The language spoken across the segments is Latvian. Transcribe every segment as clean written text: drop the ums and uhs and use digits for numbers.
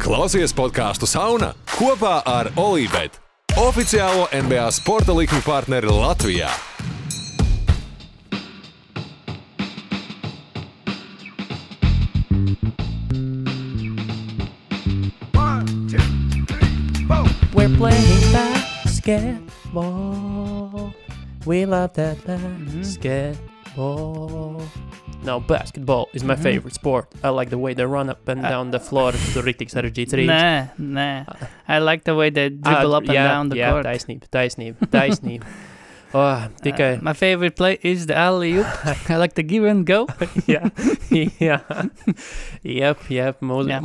Klausies podcastu Sauna kopā ar Olībet, oficiālo NBA sporta likmi partneri Latvijā. We're playing basketball. We love that basketball. No, basketball is my favorite sport. I like the way they run up and down the floor. Tu riktīgi sarežģīts rīts. Nē. I like the way they dribble up and down the court. Taisnība. Tikai... My favorite play is the alley-oop. I like the give and go. Jā.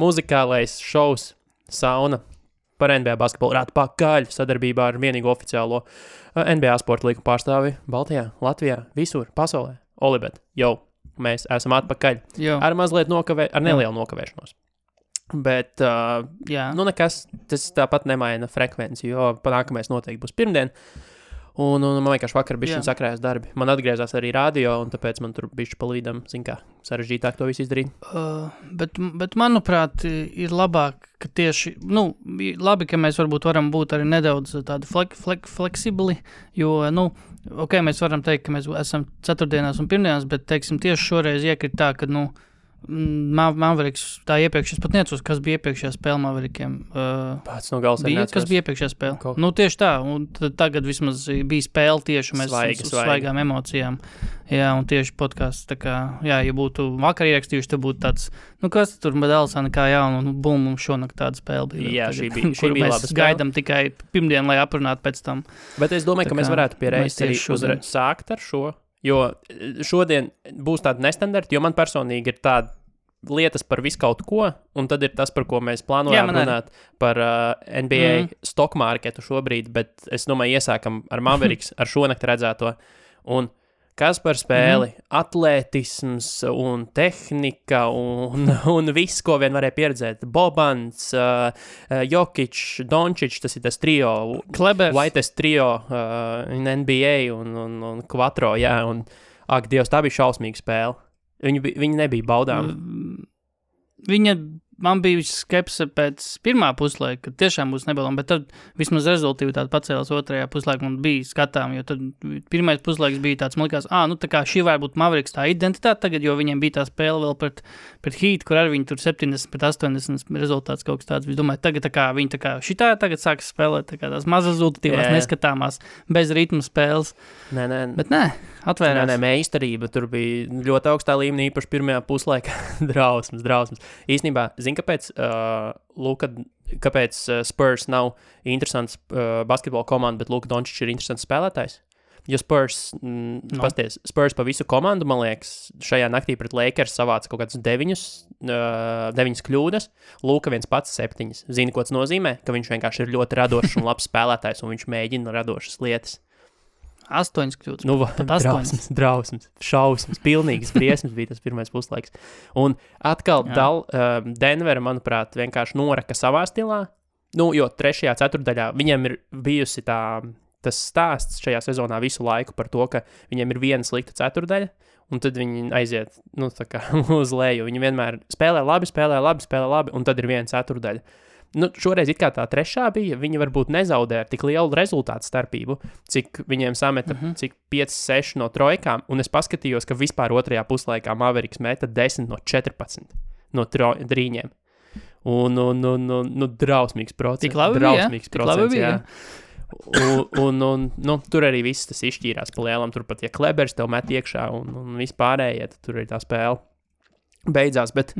Muzikālais šovs Sauna par NBA basketbolu ir atpakaļ sadarbībā ar vienīgo oficiālo NBA sporta līgu pārstāvi Baltijā, Latvijā, visur, pasaulē. Olibet, mēs esam atpakaļ. Ar mazliet ar nelielu nokavēšanos. Bet, nekas, tas tāpat nemaina frekvenci, jo nākamais noteikti būs pirmdien. Un man vienkārši vakar bišķiņ sakrājās darbi. Man atgriezās arī radio, un tāpēc man tur bišķi palīdam, sarežģītāk to visu izdarīt. Bet manuprāt, ir labāk, ka tieši, labi, ka mēs varbūt varam būt arī nedaudz tādi fleksibli, jo, mēs varam teikt, ka mēs esam ceturtdienās un pirmdienās, bet, teiksim, tieši šoreiz iekrit tā, ka, Mavericks, tā iepriekš, es pat neatceros, kas bija iepriekšējā spēle Maverikiem. Pats no gals bija, kas bija iepriekšējā spēle? Tieši tā, un tagad vismaz bija spēle tieši mēs svaigām emocijām. Jā, un tieši podcasts, tā kā, ja būtu vakar ierakstījuši, tad būtu tāds, kas tur Medelsana kā jaunu, un bum, mums šonakt tāda spēle bija. Jā, šī bija laba spēle. Gaidam tikai pirmdien, lai aprunātu pēc tam. Bet es domāju, ka mēs varētu pierēst arī sākt ar šo. Jo šodien būs tāda nestandarta, jo man personīgi ir tāda lietas par visu kaut ko, un tad ir tas, par ko mēs plānojām runāt par NBA stock marketu šobrīd, bet es domāju, iesākam ar Mavericks, ar šonakt redzēto. Un kas par spēli? Atlētisms un tehnika un viss, ko vien varēja pieredzēt. Bobans, Jokic, Doncic, tas ir tas trio. Klebers. Whitest trio in NBA un Quattro, un Dievs, tā bija šausmīga spēle. Viņi nebija baudām. Man bija skepse pēc pirmā puslaika, ka tiešām būs nebaudām, bet tad vismaz rezultīvitāte pacēlās otrajā puslaikā un bija skatām, jo tad pirmais puslaiks bija tāds, man likās, tā kā šī var būt Mavericks tā identitāte tagad, jo viņiem bija tā spēle vēl pret Heat, kur arī viņi tur 70-80 rezultāts kaut kas tāds. Es domāju, tagad tā kā viņi šitā tagad sāks spēlēt, tā kā tās maz rezultatīvās, neskatāmās, bez ritma spēles. Bet atvērās. Meistarība, tur bija ļoti augstā līmenī, īpaši pirmajā puslaikā. drausmas. Īstenībā, kāpēc Spurs nav interesants basketbola komanda, bet Luka Doncic ir interesants spēlētājs? Jo Spurs pa visu komandu, man liekas, šajā naktī pret Lakers savāca kaut kāds 9 kļūdas, Luka viens pats 7. Zini, ko tas nozīmē? Ka viņš vienkārši ir ļoti radošs un labs spēlētājs, un viņš mēģina radošas lietas. 8 kļūdas. Drausmas, šausmas, pilnīgas briesmas bija tas pirmais puslaiks. Un atkal Denvera, manuprāt, vienkārši noraka savā stilā. Jo 3. ceturtdaļā viņiem ir bijusi tas stāsts šajā sezonā visu laiku par to, ka viņiem ir viena slikta ceturdaļa, un tad viņi aiziet uz leju. Viņi vienmēr spēlē labi, un tad ir viena ceturdaļa. Šoreiz it kā tā trešā bija, viņi varbūt nezaudē ar tik lielu rezultātu starpību, cik viņiem sameta, cik 5-6 no trojkām, un es paskatījos, ka vispār otrajā puslaikā Mavericks meta 10 no 14 no drīņiem. Un drausmīgs procents. Tik labi bija. Un tur arī viss tas izšķīrās pa lielam, tur pat, ja Klebers tev met iekšā un vispārējie, tad tur arī tā spēle beidzās, bet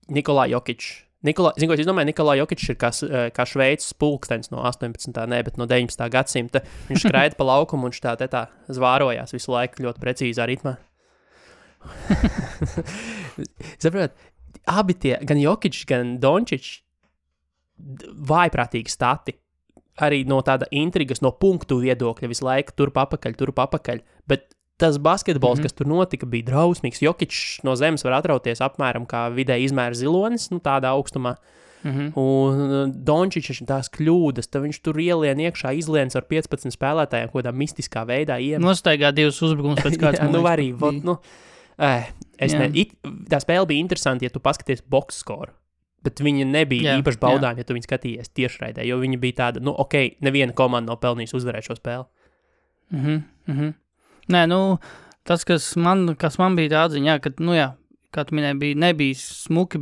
Nikolā Jokic. Zinu, ko es domāju, Nikolā Jokic ir kā Šveices pulkstenis no 18. bet no 19. gadsimta. Viņš skraida pa laukumu un viņš tā zvārojās visu laiku ļoti precīzā ritmā. Saprot, abi tie, gan Jokic, gan Doncic, vājprātīgi stati. Arī no tāda intrigas, no punktu viedokļa visu laiku turp apakaļ. Bet tas basketbols, kas tur notika, bija drausmīgs. Jokic no zemes var atrauties apmēram kā vidēji izmēra zilonis, tādā augstumā. Un Doncic tās kļūdas, tad viņš tur ielien iekšā, izliens ar 15 spēlētājiem, kādā mistiskā veidā Nostaigā 2 uzbrukumus pēc kāds. Tā spēle bija interesanti, ja tu paskaties box skoru. bet viņi nebija īpaši baudāmi, ja tu viņu skatījies tiešraidē, jo viņi bija tāda, neviena komanda nav pelnījusi uzvarēt šo spēli. Nē, tas, kas man bija tā atziņā, ka, kā tu minēji, nebija smuki,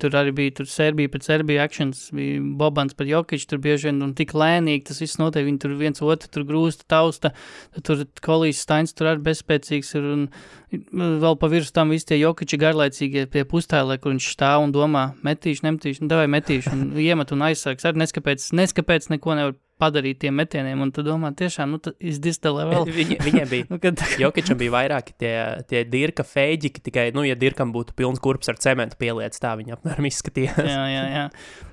tur arī bija Serbija pret Serbiju actions, bija Bobans pret Jokić, tur bieži vien un tik lēnīgi, tas viss notiek, viņi tur viens otru tur grūsta, tausta, tur Kolijs Stains tur arī bezspēcīgs ir, un vēl pa virs tam visi tie Jokići garlaicīgie pie pustēlē, kur viņš stāv un domā, metīšu, davai metīšu, un iemet un aizsargs, arī neskapēc neko nevar padarīt tiem metieniem, un tu domā, tiešām, is this the level? Viņiem bija, Jokićam bija vairāki tie Dirka feģiki, tikai, ja Dirkam būtu pilns kurps ar cementu pieliec, tā viņa apmēram izskatījās. Jā.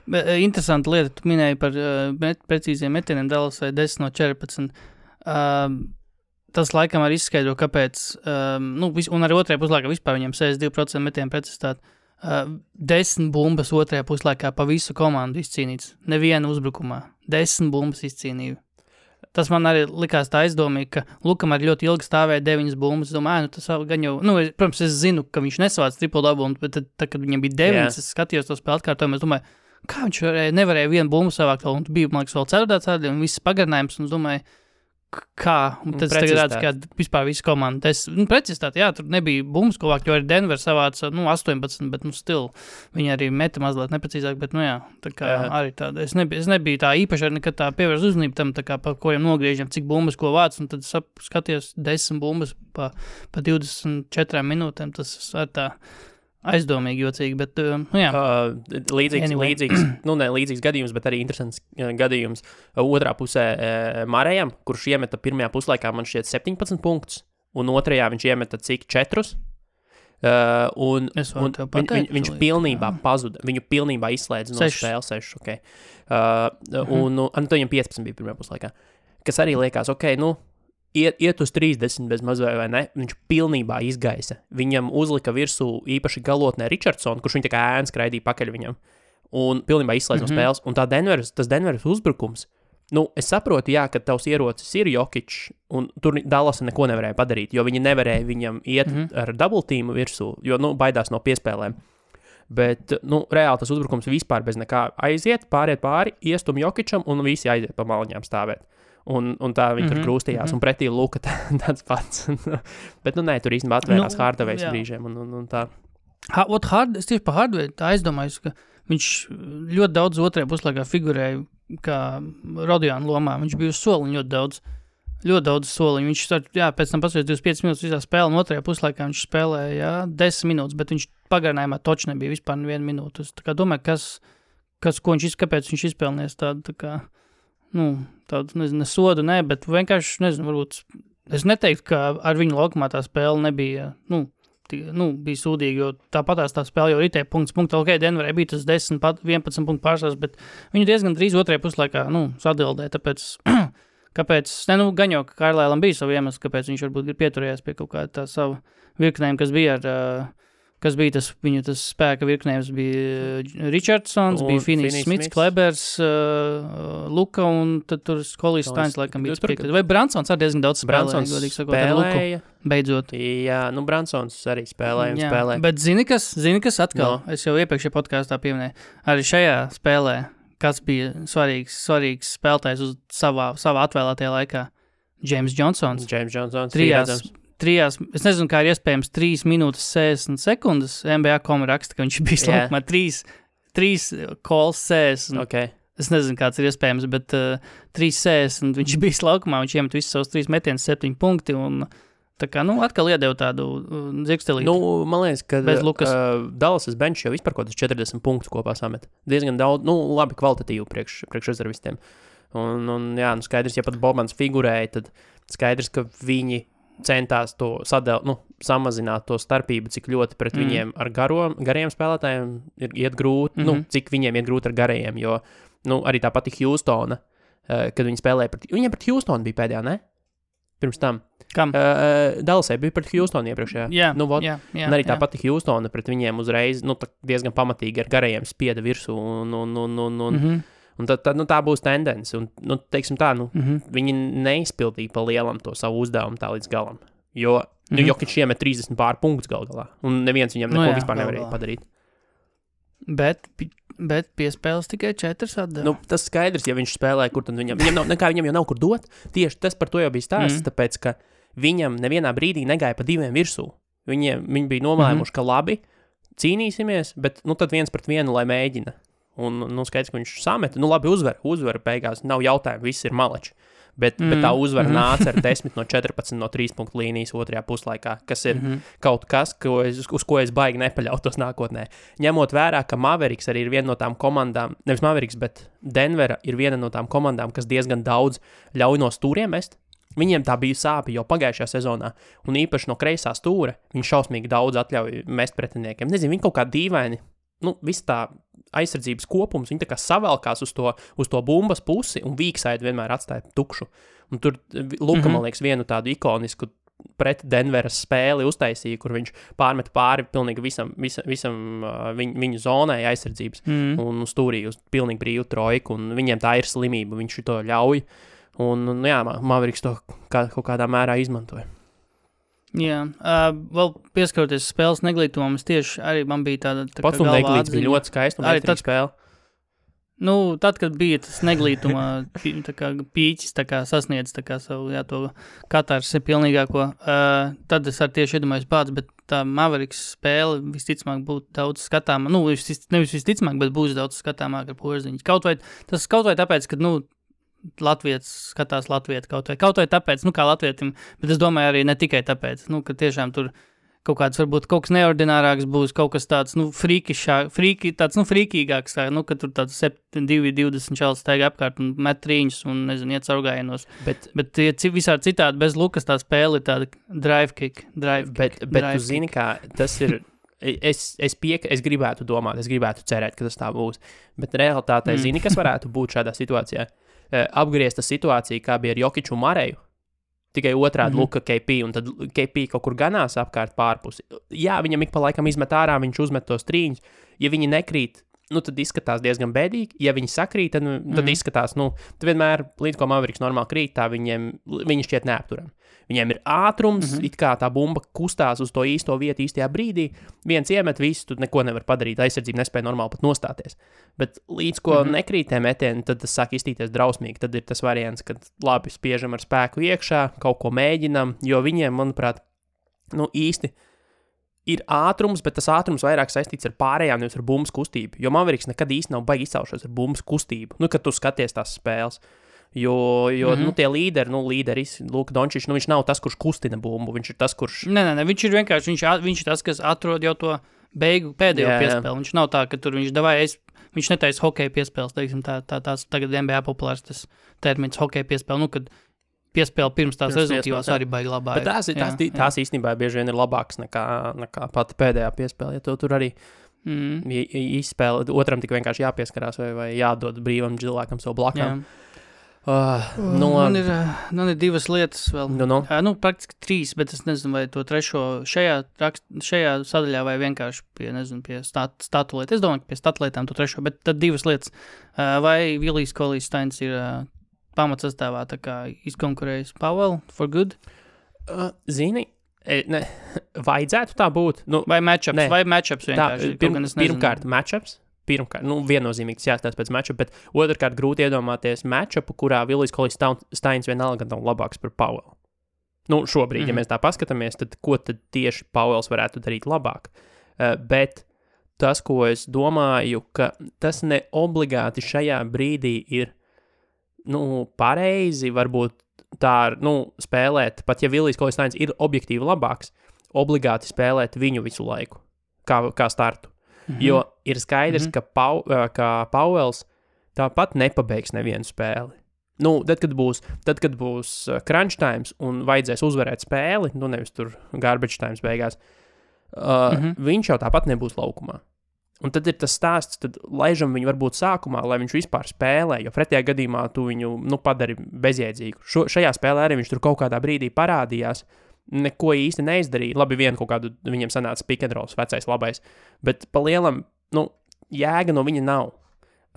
Bet, interesanta lieta, tu minēji par precīziem metieniem Dallasai 10 no 14. Tas laikam arī izskaidro, kāpēc, un arī otrajā puslaikā vispār viņiem 62% metienu precizitāti. 10 bumbas otrajā puslaikā pa visu komandu izcīnīts. Neviena uzbrukumā. 10 bumbas izcīnīja. Tas man arī likās tā aizdomīgi, ka Lukam arī ļoti ilgi stāvēja 9 bumbas. Domāju, tas gan jau, protams, es zinu, ka viņš nesavāc triple double, bet tad, kad viņam bija 9, es skatījos to spēli atkārtojumu, es domāju, kā viņš nevarēja vienu bumbu savākt, un bija, man liekas, vēl ceturtā cēdī, un viss pagarinājums, un es domāju, kā, un tad tagad redz, ka vispār visu komandu. Precizitāti, tur nebija bumbas, ko vākt, jo arī Denver savāca, 18, bet, still, viņi arī meta mazliet neprecīzāk, bet, tā kā arī tāda, es nebiju tā īpaši arī nekad tā pievērs uzmanību tam, tā kā pa kuriem nogriežam, cik bumbas, ko vāc, un tad skaties 10 bumbas pa 24 minūtēm, tas ar tā aizdomīgi, jocīgi, bet, līdzīgs gadījums, bet arī interesants gadījums otrā pusē Marejam, kurš iemeta pirmajā puslaikā, man šķiet 17 punktus, un otrajā viņš iemeta cik 4, un viņš pilnībā pazuda, viņu pilnībā izslēdz no spēles 6, ok. Un viņam 15 bija pirmajā puslaikā, kas arī liekas, ok, iet uz 30 bez mazvai vai ne, viņš pilnībā izgaisa. Viņam uzlika virsū īpaši galotnē Richardson, kurš viņa tā kā ēns skraidīja pakaļ viņam, un pilnībā izslēdz no spēles. Un tas Denveras uzbrukums, es saprotu, ka tavs ierocis ir Jokić, un tur Dallasa neko nevarēja padarīt, jo viņi nevarēja viņam iet ar double teamu virsū, jo, baidās no piespēlēm. Bet, reāli tas uzbrukums vispār bez nekā aiziet, pāriet pāri, iestum Jokićam, un visi aiziet pa maliņām stāvēt. Un tā viņi tur krūstījās, un pretī Luka tāds pats. Bet, nē, tur īstenībā atvērās Hardavejs brīžiem, un tā. Es tieši pa Hardavejs tā aizdomājos, ka viņš ļoti daudz otrajā puslaikā figurēja kā Rodiona lomā. Viņš bija uz soliņu ļoti daudz soliņu. Viņš, pēc tam pasveic 25 minūtes visā spēlē, un otrajā puslaikā viņš spēlēja, 10 minūtes, bet viņš pagarinājumā toči nebija vispār 1 minūte. Es tā kā domāju, kāpēc viņš izpelnies tādu, tā kā, tādu, nezinu, sodu, bet vienkārši, nezinu, varbūt, es neteiktu, ka ar viņu laukumā tā spēle nebija, bija sūdīga, jo tāpatās tā spēle jau ritēja punkts, ok, Denverē bija tas 10, 11 punktu pārsvars, bet viņu diezgan drīz otrajā puslaikā, sadildē, tāpēc, kāpēc, gan jau, ka Kairlēlam bija savu iemeslu, kāpēc viņš varbūt ir pieturējās pie kaut kā tā savu virknējumu, kas bija tas spēka virknējums, bija Richardsons, bija Finney Smits, Klebers, Luka, un tad tur Kolijs Stains laikam bija priekšā. Vai Bransons arī diezgan daudz spēlēja, godīgi sakot, ar Luku, beidzot. Jā, Bransons arī spēlēja. Bet zini kas atkal, es jau iepriekšējā podkāstā pieminēju, arī šajā spēlē, kas bija svarīgs spēlētājs uz savā atvēlētajā laikā, James Johnsons. Trijās, es nezinu, kā ir iespējams 3 minūtes 60 sekundes, NBA.com raksta, ka viņš bija slaukumā 3 calls 60. Okay. Es nezinu, kāds ir iespējams, bet 3.60 viņš bija slaukumā, viņš iemet visus savus 3 metienus 7 punkti, un tā kā, atkal iedeva tādu dzirkstelīti. Man liekas, ka Dallasas bench jau vispār kaut 40 punktus kopā samet. Diezgan daudz, labi kvalitatīvu priekš rezervistiem. Un skaidrs, ja pat Bobans figurēja, tad skaidrs, ka viņi centās to samazināt to starpību, cik ļoti pret viņiem ar gariem spēlētājiem iet grūti, cik viņiem iet grūti ar garajiem, jo, arī tā pati Houstona, kad viņi spēlēja viņiem pret Houstonu bija pēdējā, ne? Pirms tam. Kam? Dallasai bija pret Houstonu iepriekšējā. Jā. Un arī tā pati Houstona pret viņiem uzreiz, diezgan pamatīgi ar garajiem spieda virsū, un tā būs tendence, un, teiksim tā, viņi neizpildīja pa lielam to savu uzdevumu tā līdz galam, jo, Jokić iemet 30 pār punktus galā, un neviens viņam neko vispār nevarēja padarīt. Bet Bet piespēles tikai 4 atdeva. Nu, tas skaidrs, ja viņš spēlē, kur tad viņam jau nav kur dot. Tieši tas par to jau bija stāsts, tāpēc, ka viņam nevienā brīdī negāja pa 2 virsū. Viņi bija nomēmuši, ka labi, cīnīsimies, bet tad 1-1, lai mēģina. Un, skaidrs, ka viņš sameta, labi uzvar beigās, nav jautājumu, viss ir maleči. Bet tā uzvara nāca ar 10 no 14 no 3 punktu līnijas otrajā puslaikā, kas ir kaut kas, uz ko es baigi nepaļautos nākotnē. Ņemot vērā, ka Mavericks arī ir viena no tām komandām, nevis Mavericks, bet Denvera ir viena no tām komandām, kas diezgan daudz ļauj no stūriem mest. Viņiem tā bija sāpi jau pagājušajā sezonā, un īpaši no kreisā stūra viņi šausmīgi daudz atļauj mest pretiniekiem. Nezinu, viņi kaut kā dīvaini, viss tā aizsardzības kopums, viņi tā kā savelkās uz to bumbas pusi, un Vīksaidi vienmēr atstāja tukšu. Un tur Luka, man liekas, vienu tādu ikonisku pret Denveras spēli uztaisīja, kur viņš pārmet pāri pilnīgi visam viņu zonai aizsardzības, un stūrīja uz pilnīgi brīvu trojku, un viņiem tā ir slimība, viņš to ļauj. Un Mavericks to kaut kādā mērā izmantoja. Jā, vēl pieskaroties spēles neglītumam, es tieši arī man bija tāda pats un neglīts bija ļoti skaisti un metrīga spēle. Tad, kad bija tas neglītuma pīķis sasniedz savu, to katarsi pilnīgāko, tad es arī tieši iedomājos bāds, bet tā Mavericks spēle visticamāk būtu daudz skatāmā, nevis visticamāk, bet būs daudz skatāmāk ar Porziņu. Kaut vai tāpēc, ka, Latvijas skatās Latvietu kaut vai tāpēc, kā latvietim, bet es domāju arī ne tikai tāpēc, ka tiešām tur kaut kāds varbūt kaut kas neordinārāks būs, kaut kas tāds, frīkīgāks, ka tur tāds 7-2-20 čalis staigā apkārt un met trīņus un, iet caurgājienos. Bet visādi citādi bez Lukas tā spēle ir tāda drive kick. Bet tu zini, kā tas ir... Es gribētu domāt, es gribētu cerēt, ka tas tā būs, bet realitātē zini, kas varētu būt šādā situācijā. Apgriezta situācija, kā bija ar Jokiču un Mareju, tikai otrādi Luka KP, un tad KP kaut kur ganās apkārt pārpusi. Jā, viņam ik pa laikam izmet ārā, viņš uzmet tos trīņus, ja viņi nekrīt, tad izskatās diezgan bēdīgi, ja viņi sakrīt, tad izskatās, tad vienmēr, līdz ko Mavericks normāli krīt, tā viņi šķiet neapturam. Viņiem ir ātrums, it kā tā bumba kustās uz to īsto vietu īstajā brīdī, viens iemet visu, tu neko nevar padarīt, aizsardzība nespēja normāli pat nostāties. Bet līdz ko nekrīt tie metieni, tad tas sāk iztīties drausmīgi, tad ir tas variants, kad labi spiežam ar spēku iekšā, kaut ko mēģinam, jo viņiem, manuprāt, īsti ir ātrums, bet tas ātrums vairāk saistīts ar pārējām, nevis ar bumbas kustību, jo Mavericks nekad īsti nav baigi izcaušos ar bumbas kustību, kad tu skaties tās spēles. Jo tie līderis, Luka Dončičs, viņš nav tas, kurš kustina bumbu, viņš ir tas, kurš... Nē, viņš ir vienkārši, viņš ir tas, kas atrod jau to pēdējo piespēli. Viņš nav tā, ka tur viņš netaisa hokeja piespēles, teiksim, tās tagad NBA populārs tas termins hokeja piespēle, kad piespēle pirms tās rezultīvās arī baigi labā. Bet tās īstenībā bieži vien ir labākas nekā pati pēdējā piespēle, ja tur arī izspēle, otram tik vienkārši jāpieskarās vai jādod brīvam cilvēkam savu blakām. Man ir 2 lietas vēl. Praktiski 3, bet es nezinu, vai to trešo šajā sadaļā vai vienkārši pie statu lietu. Es domāju, ka pie statu lietām to trešo, bet tad 2 lietas. Vai Vilijs Kolīs-Steins ir pamatsastāvā tā kā izkonkurējis Powell for good? Zini, vajadzētu tā būt. Vai matchups vienkārši? Pirmkārt, matchups. Viennozīmīgi tas jāstāsta pēc matchup, bet otrkārt grūti iedomāties matchupu, kurā Vilijs Kolīs-Steins vienalga nav labāks par Powell. Šobrīd, ja mēs tā paskatāmies, tad ko tad tieši Powells varētu darīt labāk? Bet tas, ko es domāju, ka tas ne obligāti šajā brīdī ir, pareizi, varbūt tā, spēlēt, pat ja Vilijs Kolīs-Steins ir objektīvi labāks, obligāti spēlēt viņu visu laiku, kā startu. Jo ir skaidrs, ka Powells tāpat nepabeigs nevienu spēli. Tad, kad būs crunch times un vajadzēs uzvarēt spēli, nevis tur garbage times beigās, viņš jau tāpat nebūs laukumā. Un tad ir tas stāsts, tad laižam viņu varbūt sākumā, lai viņš vispār spēlē, jo pretējā gadījumā tu viņu padari bezjēdzīgu. Šajā spēlē arī viņš tur kaut kādā brīdī parādījās, neko īsti neizdarīja. Labi, vienu kaut kādu viņam sanāca pick and rolls, vecais labais, bet pa lielam, jēga no viņa nav.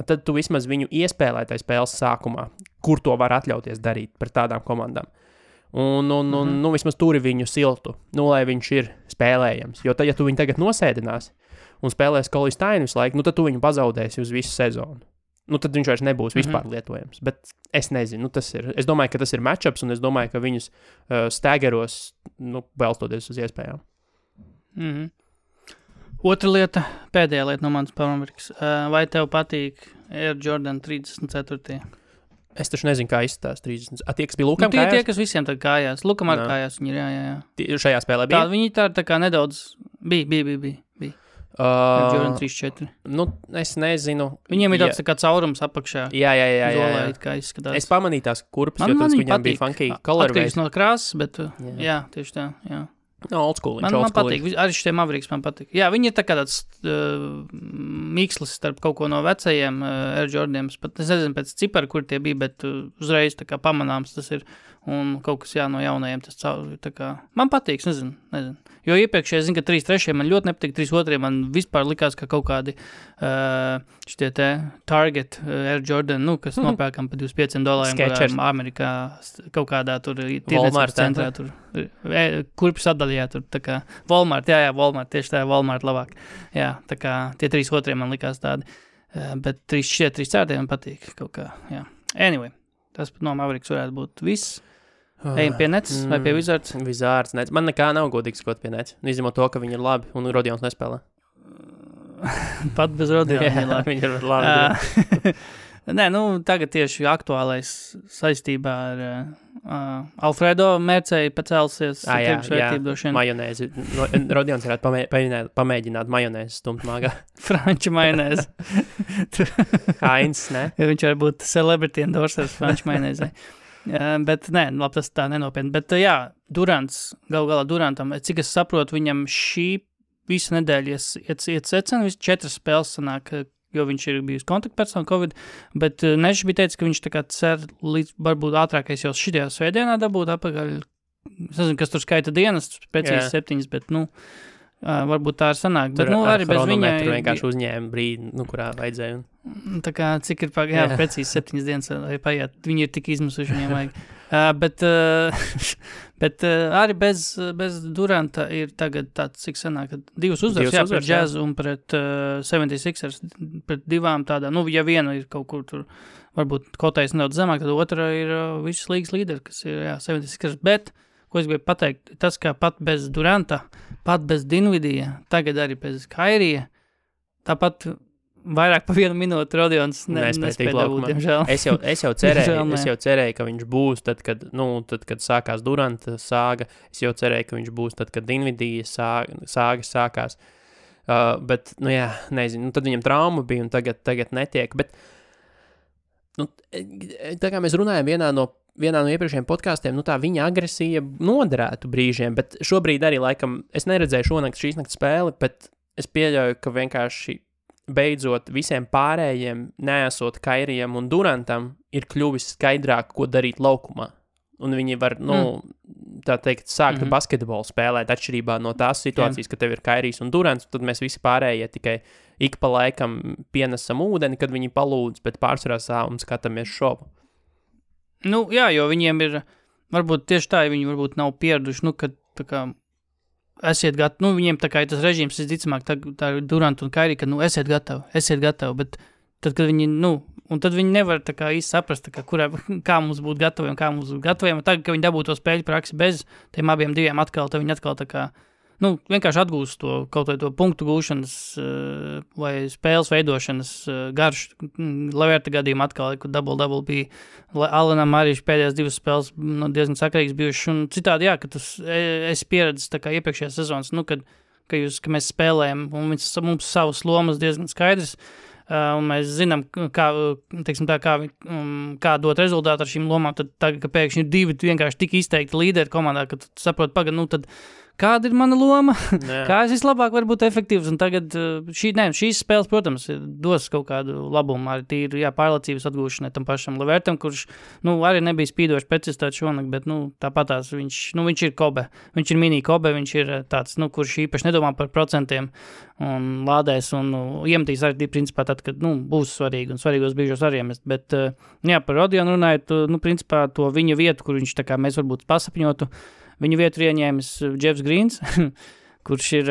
Tad tu vismaz viņu iespēlē tai spēles sākumā, kur to var atļauties darīt pret tādām komandām. Un vismaz turi viņu siltu, lai viņš ir spēlējams. Jo tad, ja tu viņu tagad nosēdināsi, un spēlēs Colin Stein visu laiku, nu tad tu viņu pazaudēsi uz visu sezonu. Nu, tad viņš vairs nebūs vispār lietojams. Bet es nezinu, es domāju, ka tas ir matchups, un es domāju, ka viņus stēgeros, balstoties uz iespējām. Otra lieta, pēdējā lieta no manas Amerikas. Vai tev patīk Air Jordan 34? Es taču nezinu, kā izstās 30. Tie, kas bija Lukam kājās? Tie, kas visiem tagad kājās. Lukam ar kājās viņi ir, jā. Šajā spēlē bija? Viņi tā kā nedaudz bija. Jordan 34. Nu, es nezinu. Viņiem ir tāds tā kā caurums apakšā. Jā. Zolā, kā izskatās. Es pamanīju tās kurpes, jo tas viņām bija funky colorways. Atkarīgs no krāsas, bet jā, tieši tā, jā. No, old school. Man patīk, arī šie Mavericks man patīk. Jā, viņi ir tā kā tāds mikslis starp kaut ko no vecajiem Air Jordaniem. Es nezinu pēc cipara, kur tie bija, bet uzreiz tā kā pamanāms tas ir. Un kaut kas no jaunajiem tas tā kā... Man patīk, nezinu. Jo iepriekšēji, zinu, ka 3-3 man ļoti nepatīk, 3-2 man vispār likās, ka kaut kādi šitie te Target Air Jordan, kas nopērkam par $25, Amerikā kaut kādā tur tirdzniecības centrā, tur kurpju sadaļā, tur tā kā Walmart, jā, Walmart, tieši tā, Walmart labāk. Jā, tā kā tie 3-2 man likās tādi, bet 3-4 man patīk kaut kā, jā. Anyway, tas no Mavericks varētu būt viss. Ejam pie Nets vai pie Wizards? Wizards, Nets. Man nekā nav godīgi skot pie Nets. Izņemot to, ka viņi ir labi un Rodions nespēlē. Pat bez Rodiona viņi ir labi. Viņi ir labi. Nē, tagad tieši aktuālais saistībā ar Alfredo Mērcēju pacelsies. Jā, majonēzi. Rodions varētu pamēģināt majonēzi stumt māgā. Franču majonēzi. Heinz, ne? Viņš var būt celebrity endorsers Franču majonēzai. Bet nē, labi, tas tā nenopietni. Bet jā, Durants, galā Durantam, cik es saprotu, viņam šī visa nedēļa iet secena, 4 spēles sanāk, jo viņš ir bijis kontaktpersona Covid, bet Nešs bija teicis, ka viņš tā kā cer līdz varbūt ātrākais jau šitajā svētdienā dabūt apakaļ. Es nezinu, kas tur skaita dienas, precīzi 7, bet varbūt tā ir sanāk. Bet arī bez viņa vienkārši uzņēma brīdi, kurā vajadzēja. Tā kā cik ir precīzi 7 dienas vai paiet, viņi ir tik izmisuši, viņiem vajag. Bet arī bez Duranta ir tagad tāds, cik sanāk, 2 uzvaras, pret Jazz un pret 76ers, pret 2 tādām, ja viena ir kaut kur tur, varbūt kotējas nedaudz zemāk, tad otra ir visas līgas līderi, kas ir 76ers, bet, ko es gribēju pateikt, tas, ka pat bez Duranta, pat bez Dinvidija, tagad arī bez Kairija, tāpat vairāk pa 1 minūti Rodions nespēja dabūt, diemžēl. Es jau cerēju, ka viņš būs tad, kad sākās Duranta sāga. Es jau cerēju, ka viņš būs tad, kad Dinvidija sāga sākās. Bet, nezinu, tad viņam trauma bija un tagad netiek. Bet, tā kā mēs runājam vienā no iepriekšējiem podkāstiem, tā viņa agresija noderētu brīžiem, bet šobrīd arī laikam, es neredzēju šīs nakts spēli, bet es pieļauju, ka vienkārši beidzot visiem pārējiem, neesot Kairijam un Durantam, ir kļuvis skaidrāk, ko darīt laukumā. Un viņi var, tā teikt, sākt basketbolu spēlēt atšķirībā no tās situācijas, ka tev ir Kairijs un Durants, tad mēs visi pārējie tikai ik pa laikam pienesam ūdeni, kad viņi palūdz, bet pārsvarā un skatāmies šovu. Jā, jo viņiem ir, varbūt tieši tā, viņi varbūt nav pieraduši, kad tā kā esiet gatavi, viņiem tā kā ir tas režīms, visticamāk, tā ir Durant un Kairi, ka, esiet gatavi, bet tad, kad viņi, un tad viņi nevar tā kā īsti saprast, tā kā, kā mums būt gataviem, un tagad, kad viņi dabūtu to spēļu praksi bez tiem abiem diviem atkal, tad viņi atkal tā kā, vienkārši atgūst to kaut vai to punktu gūšanas vai spēles veidošanas garš, Leverta gadījumā atkal, kad double bija, Alanam arī pēdējās 2 spēles diezgan sakarīgs bijuši, un citādi, ka tas es pieredzis tā kā iepriekšējās sezonas, kad mēs spēlējam, un mums savas lomas diezgan skaidrs, un mēs zinām, kā dot rezultātu ar šīm lomām, tad tagad, ka pēkšņi ir 2 vienkārši tik izteikti līderi komandā, ka tu saproti, tad kāda ir mana loma, kā es vislabāk varu būt efektīvs, un tagad šīs spēles, protams, dos kaut kādu labumu, arī tīri, pārliecības atgūšanai tam pašam Levertam, kurš, arī nebija spīdoši precizitāti šonakt, bet, tāpatās viņš ir Kobe, viņš ir mini Kobe, viņš ir tāds, kurš īpaši nedomā par procentiem un lādēs un iemetīs arī, principā, tad, kad, būs svarīgi un svarīgos brīžos arī iemest, bet, par Rodionu runājot, principā, to viņa vietu, kur viņš tā kā mēs varbūt pasapņotu, viņu vietu ieņēmis Jeffs Greens, kurš ir,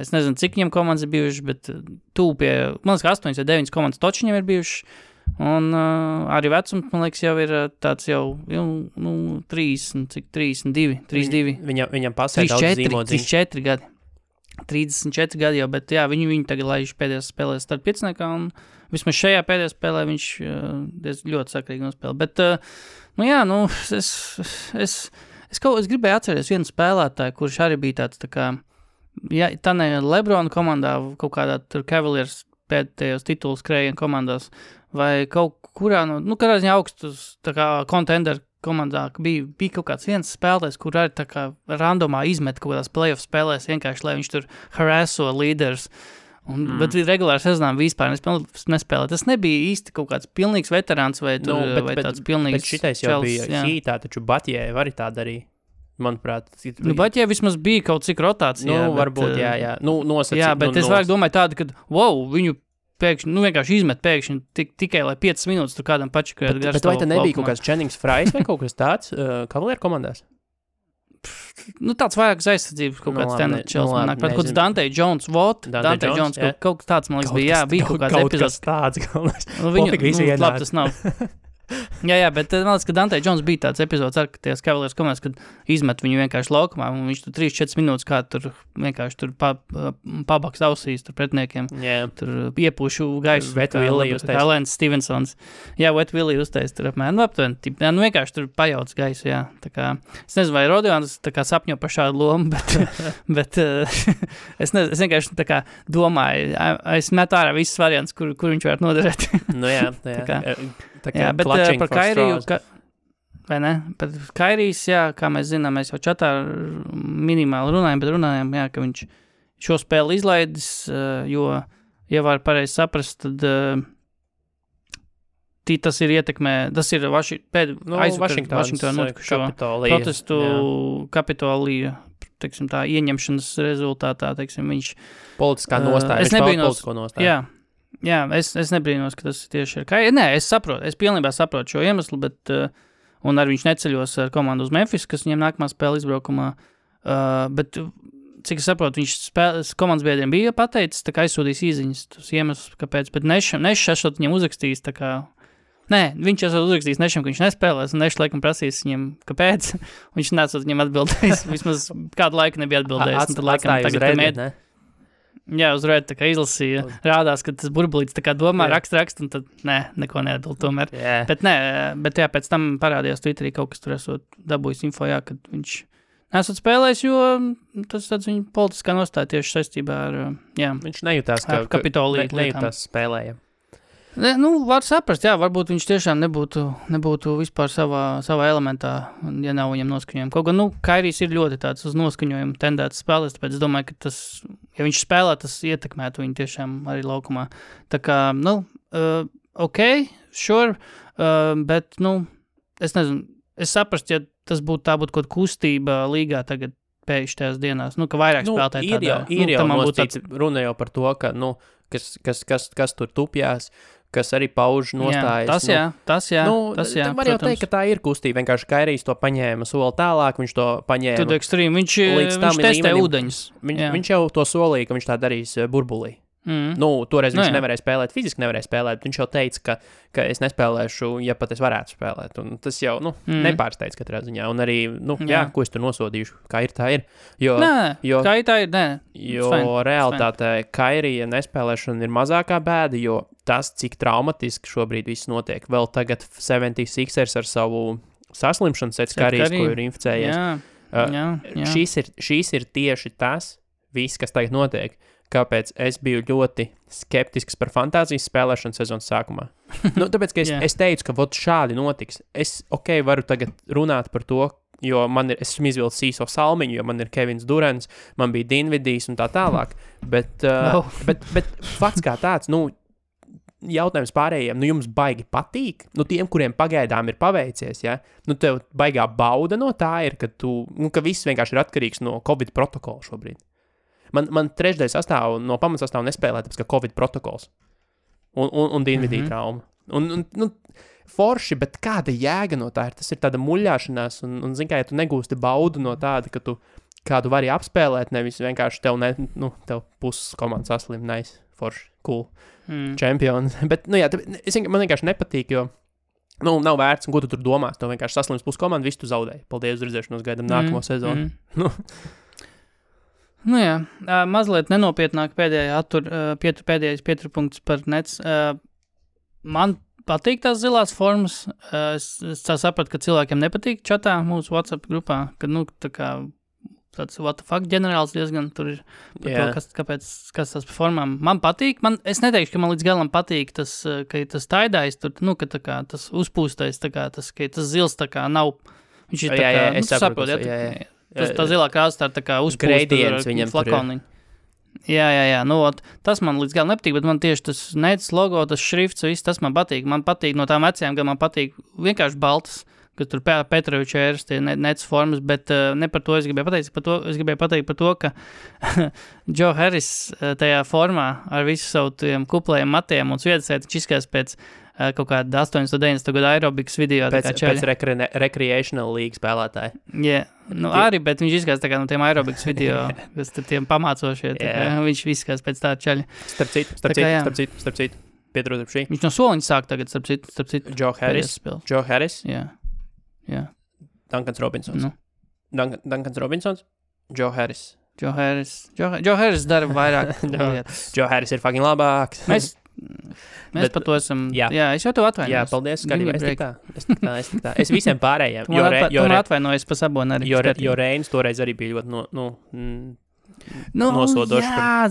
es nezinu, cik viņam komandas ir bijušas, bet tūp pie, man liekas, 8 vai 9 komandas toči viņam ir bijušas, un arī vecums, man liekas, jau ir tāds jau 32. Viņam pasē daudz zīmodziņu. 34 gadi. 34 gadi jau, bet jā, viņu tagad laiž pēdējās spēlēs starp pieciniekā, un vismaz šajā pēdējā spēlē viņš ļoti sakrīgi nospēlē. Bet, es gribēju atcerēties vienu spēlētāju, kurš arī bija tāds, tā kā, ja tā ne Lebrona komandā, kaut kādā tur Cavaliers pēdējos tituls krējienu komandās, vai kaut kurā, kādā ziņā augstus, tā kā contender komandā bija kaut kāds viens spēlētājs, kur arī tā kā randomā izmet kaut kādās playoff spēlēs, vienkārši, lai viņš tur harasso līderus. Bet regulāri sezonā vispār nespēlē. Tas nebija īsti kaut kāds pilnīgs veterāns vai tāds pilnīgs. Bet šitais jau bija hītā, taču Batjē arī tā darīja, manuprāt. Batjē vismaz bija kaut cik rotācijā. Varbūt, jā. Nosacīt. Jā, bet es vairāk domāju tādu, ka, viņu pēkšņi, vienkārši izmet pēkšņi tikai, lai 5 minūtes tur kādam pačakājot garš. Bet vai tā nebija kaut kāds Jennings Frais vai kaut kas tāds Kavalieru komandās? Tāds vairāk aizsardzības kaut kāds tenečels. Kaut kāds Dante Jones, Dante Jones, kaut tāds, man liekas, bija, bija kaut kāds epizods. Kaut kas tāds. Labi, tas nav. Jā, bet man liekas, ka Dante Jones bija tāds epizods ar ties Cavaliers komandas, kad izmet viņu vienkārši laukumā, un viņš tur 3-4 minūtes kā tur vienkārši tur pabaks ausīs tur pretniekiem. Tur iepūšu gaisu. Wet Willie uztais. Lance Stevensons. Jā, Wet Willie uztais tur apmēram. Vienkārši tur pajauc gaisu, jā. Tā kā, es nezinu, vai Rodions tā kā sapņo par šādu lomu, bet es vienkārši tā kā domāju, es metu ārā visas variants, kur viņš varētu noderēt. Jā, bet par Kairiju, vai ne? Par Kairijs, jā, kā mēs zinām, mēs jau čatā minimāli runājam, jā, ka viņš šo spēli izlaidis, jo, ja var pareizi saprast, tad tas ir ietekmē, tas ir Vašingtona protestu Kapitolija, teiksim tā, ieņemšanas rezultātā, teiksim, viņš politiskā nostāja, viņš pauda politisko nostāju. Jā, es nebrīnos, ka tas tieši ir Kairija. Nē, es pilnībā saprotu šo iemeslu, bet, un arī viņš neceļos ar komandu uz Memphis, kas viņiem nākamā spēle izbraukumā, bet, cik es saprotu, viņš komandas biedriem bija pateicis, tā kā aizsūdīs īziņas, tas iemesls, kāpēc, bet Nešs esot viņiem uzrakstījis, tā kā, nē, viņš esot uzrakstījis Nešam, ka viņš nespēlēs, un Nešs laikam prasīs viņiem, kāpēc, viņš nesot viņiem atbildējis, vismaz kādu laiku nebija atbildējis, un tad laikam tagad, jā, uz Reddit tā kā izlasīja, rādās, ka tas burbulīts tā kā domā, rakst, un tad, neko neatbild tomēr. Bet jā, pēc tam parādījās Twitterī kaut kas tur esot dabūjis info, jā, kad viņš nesot spēlējis, jo tas tāds viņa politiskā nostāja tieši saistībā ar, jā. Viņš nejūtās, ka Kapitoliju nejūtās spēlēja. Var saprast, jā, varbūt viņš tiešām nebūtu vispār savā elementā, ja nav viņam noskaņojumi. Kaut gan, Kairijs ir ļoti tāds uz noskaņojumu tendēts spēlēs, tāpēc es domāju, ka tas, ja viņš spēlē, tas ietekmētu viņu tiešām arī laukumā. Tā kā, sure, bet, es nezinu, es saprast, ja tas tā būtu kaut kustība līgā tagad pēkšņi tajās dienās, ka vairāk spēlētāji tādā. Ir jau nostīts, runa jau par to, ka, kas tur tupjās, kas arī pauž nostājas. Tas jā. Var jau teikt, ka tā ir kustība. Vienkārši Kairijs to paņēma soli tālāk, viņš to paņēma. Tad ekstrīm, viņš testē ūdeņus. Viņš jau to solīja, ka viņš tā darīs burbulī. Toreiz viņš nevarēja spēlēt, fiziski nevarēja spēlēt, viņš jau teica, ka es nespēlēšu, ja pat es varētu spēlēt, un tas jau, nepārsteidz katrā ziņā, un arī, ko es tur nosodīšu, kā ir, tā ir, kā ir, tā ir, jo realitātē Kairija nespēlēšana ir mazākā bēda, jo tas, cik traumatiski šobrīd viss notiek, vēl tagad 76ers ar savu saslimšanu sēc Kairijas, ko ir inficējies. Šīs ir tieši tas, viss, kas tagad notiek. Kāpēc es biju ļoti skeptisks par fantāzijas spēlēšanu sezonas sākumā. Tāpēc, ka es teicu, ka šādi notiks. Es, varu tagad runāt par to, jo es esmu izvilcis īso salmiņu, jo man ir Kevins Durants, man bija Dinvidijs un tā tālāk. Bet fakts kā tāds, jautājums pārējiem, jums baigi patīk? Tiem, kuriem pagaidām ir paveicies, ja? Tev baigā bauda no tā ir, ka viss vienkārši ir atkarīgs no Covid protokola šobrīd. Man trešdaļa sastāv no pamatsastāvu nespēlē, tāpēc, ka Covid protokols un Dinvidija trauma. Un forši, bet kāda jēga no tā ir? Tas ir tāda muļāšanās, un zin kā, ja tu negūsti baudu no tāda, ka tu kādu vari apspēlēt, nevis vienkārši tev puses komandas saslim, nice, forši, cool, čempions. Bet, man vienkārši nepatīk, jo, nav vērts, un ko tu tur domās, tev vienkārši saslims puses komandu, visu tu zaudēji. Paldies, uz redzēšanos, gaidam nākamo sezonu. Mazliet nenopietnāk pēdējais pieturpunkts par Nets. Man patīk tās zilās formas. Es sapratu, ka cilvēkiem nepatīk čatā mūsu WhatsApp grupā, ka, tā kā tāds what the fuck ģenerāls diezgan tur ir par to, kas tas par formām. Man patīk, es neteikšu, ka man līdz galam patīk tas, ka tas taidājs tur, ka tā kā tas uzpūstais, tā kā tas, ka tas zils tā kā nav, viņš ir tā kā, es saprotu, tā zilā krāsa tā kā uzpūsta flakoniņa. Jā, tas man līdz galam nepatīk, bet man tieši tas Nets logo, tas šrifts, viss tas man patīk. Man patīk no tām vecajām, ka man patīk vienkārši baltas, ka tur Petroviča ēras tie Nets formas, bet ne par to es gribēju pateikt. Es gribēju pateikt par to, ka Joe Harris tajā formā ar visu savu tiem kuplējiem matiem un sviedasēt, viņš izskās pēc kaut kāda 80. 90. gada aerobikas video. Pēc recreational league spēlētāji. Arī, bet viņš izskās tā kā no tiem aerobikas video, kas tur tiem pamācošie. Viņš izskās pēc tā čaļa. Starp citu, pietrūdam šī. Viņš no soliņa sāk tagad, starp citu. Joe Harris. Jā. Duncans Robinsons. Duncans Robinsons. Joe Harris. Joe Harris dara vairāk lietas. Joe Harris ir fucking labāks. Mēs par to esam... Jā, es jau tev atvainojos. Jā, paldies, skatījumā. Es tik tā. Es visiem pārējiem. Tu man atvainojies pa Saboni arī. Jo Reinis toreiz arī bija ļoti nosodošs. Jā,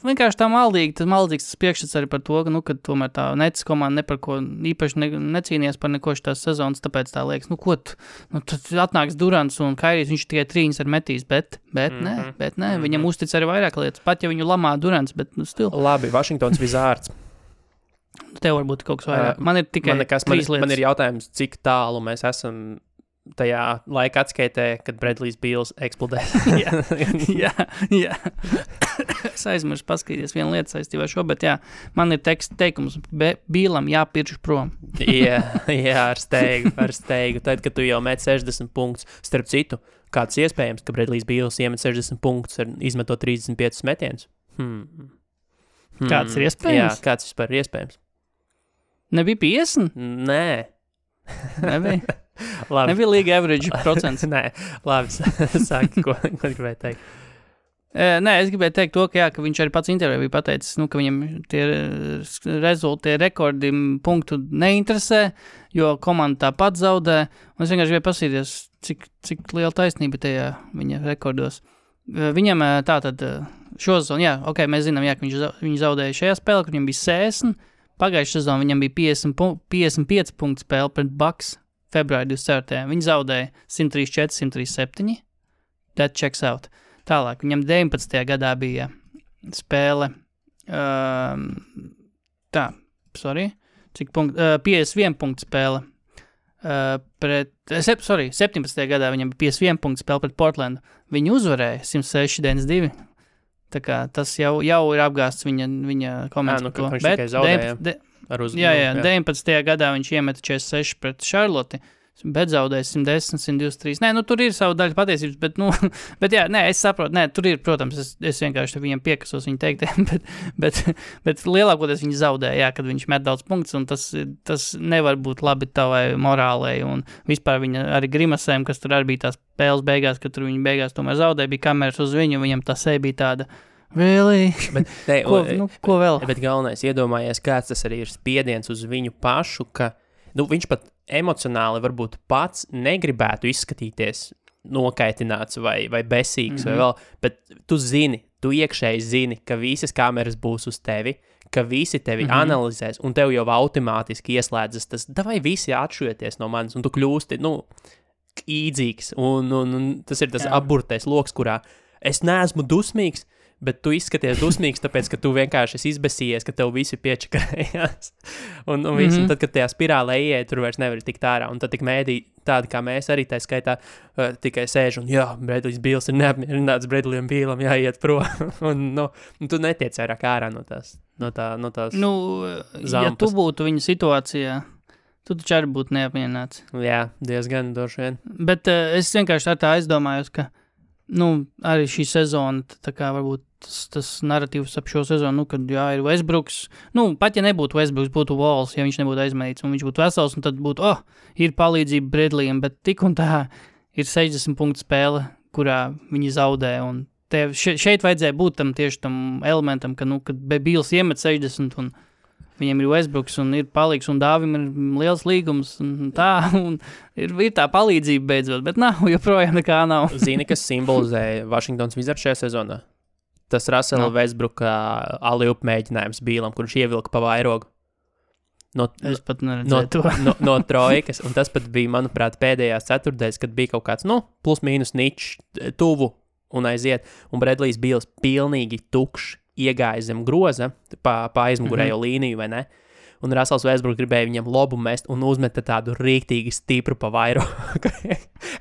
vienkārši tā maldīgs tas priekšstats arī par to, ka tomēr tā Nets komanda ne par ko īpaši necīnījās par neko šitās sezonas, tāpēc tā liekas, tad atnāks Durants un Kairijs, viņš tikai trīņas ar metīs, bet nē, viņam uztic arī vairāk lietas, pat ja viņu lamā Durants, bet stil. Labi, Washingtons Wizards. Tev varbūt kaut kas vairāk. Man ir tikai 3 lietas. Man ir jautājums, cik tālu mēs esam tajā laika atskaitē, kad Bradley's Beals eksplodē. Jā. Es aizmirsu paskatīties vienu lietu saistībā ar šo, bet man ir teikums, Bealam jāpirš prom. jā, ar steigu. Tad, kad tu jau met 60 punktus, starp citu, kāds iespējams, ka Bradley's Beals iemet 60 punktus ar izmetot 35 metienus? Kāds ir iespējams? Jā, kāds vispār ir iespējams? Nebija 50? Nē. Nebija? Labi. Nebija līga average procents. Nē, labi, sāki, ko gribēju teikt. Nē, es gribēju teikt to, ka viņš arī pats intervijā bija pateicis, ka viņam tie rezultāti, tie rekordi punktu neinteresē, jo komanda tāpat zaudē, un es vienkārši gribēju pasīties, cik liela taisnība tajā viņa rekordos. Viņam tātad šo sezonu, mēs zinām, ka viņš zaudēja šajā spēlē, kur viņam bija 60, pagājušajā sezonā viņam bija 55 punktu spēle pret Bucks februāri 24. Viņi zaudēja 134, 137. That checks out. Tālāk, viņam 19. gadā bija spēle, 51 punktu spēle pret, 17. gadā viņam bija 51 punktu spēle pret Portlandu. Viņi uzvarēja 106-92. Tā kā tas jau ir apgāsts viņa komentārs par to. Bet 19. gadā viņš iemeta 46 pret Charlotte, bet zaudēja 110, 123. Nē, tur ir savu daļu patiesības, bet es saprotu, tur ir, protams, es vienkārši viņam piekasos viņa teiktiem, bet lielākoties viņi zaudēja, kad viņš met daudz punktus, un tas nevar būt labi tavai morālei, un vispār viņa arī grimasēm, kas tur arī bija tās spēles beigās, kad tur viņa beigās tomēr zaudēja, bija kameras uz viņu, viņam tā seja bija tāda, really? Ko vēl? Bet galvenais, iedomājies, kāds tas arī ir spiediens uz viņu pašu, ka viņš pat emocionāli varbūt pats negribētu izskatīties nokaitināts vai besīgs vai vēl, bet tu iekšēji zini, ka visas kameras būs uz tevi, ka visi tevi analizēs, un tev jau automātiski ieslēdzas tas, davai visi atšujieties no manis, un tu kļūsti, īdzīgs, un tas ir tas apburtais loks, kurā es neesmu dusmīgs, bet tu izskaties dusmīgs, tāpēc, ka tu vienkārši esi izbesījies, ka tev visi piečakarējās. un tad, kad tajā spirālē ieej, tur vairs nevar tikt ārā. Un tad tik mēdī tādi, kā mēs arī tā skaitā, tikai sēž un, Bradley's Beals ir neapmierināts, Bradleyam Bealam jāiet prom. un tu netiec vairāk ārā no tās zampas. Ja tu būtu viņa situācijā, tu taču arī būtu neapmierināts. Jā, diezgan droši vien. Bet es vienkārši tā aizdomājos, ka arī šī sezona, tā kā varbūt tas narratīvs ap šo sezonu, kad ir Westbrooks, pat ja nebūtu Westbrooks, būtu Walls, ja viņš nebūtu aizmainīts, un viņš būtu vesels, un tad būtu, ir palīdzība Bradleyam, bet tik un tā ir 60 punktu spēle, kurā viņi zaudē, un šeit vajadzēja būt tieši tam elementam, kad Bīls iemet 60, un viņiem ir Westbrooks un ir palīgs, un Dāvim ir liels līgums, un ir tā palīdzība beidzot, bet joprojām nekā nav. Zini, kas simbolizē Washingtons Wizards šajā sezonā? Tas Russella Westbrooka alley-oop mēģinājums Bīlam, kurš ievilka pa vairogu. Es pat neredzēju to. no trojkas, un tas pat bija, manuprāt, pēdējās ceturtdaļas, kad bija kaut kāds, plus mīnus ničs tuvu un aiziet, un Bradley's Bīls pilnīgi tukšs iegāja zem groza pa aizmugurējo līniju, vai ne? Un Russells Westbrook gribēja viņam lobu mest un uzmeta tādu rīktīgi stipru pa vairogu.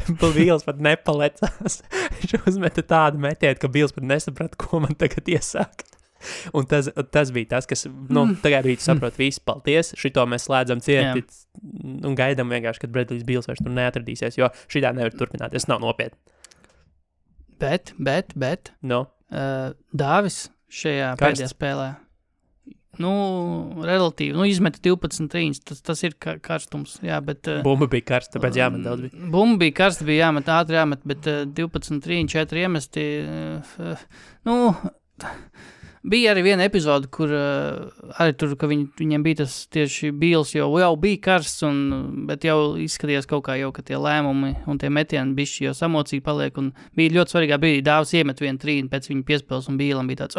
Bīls pat nepalecās. Viņš uzmeta tādu metienu, ka Bīls pat nesaprata, ko man tagad iesākt. Un tas bija tas, kas, tagad arī saprot visu, paldies, šito mēs slēdzam cieti un gaidām vienkārši, kad Bradley's Bīls vairs tur neatradīsies, jo šitā nevar turpināties, nav nopietni. Bet, Dāvis šajā pēdējā spēlē, relatīvi, izmeta 12 trīņas, tas ir karstums, jā, bet... Bumba bija karsta, tāpēc jāmet daudz bija. Bumba bija karsta, bija jāmet, ātri jāmet, bet 12 trīņi, 4 iemesti, bija arī viena epizode, kur arī tur, ka viņiem bija tas tieši Bīls, jau bija karsts, bet jau izskatījās kaut kā jau, ka tie lēmumi un tie metieni bišķi jau samocīgi paliek, un bija ļoti svarīgā brīdī, Dāvis iemet vienu trīni pēc viņa piespēles, un Bīlam bija tāds,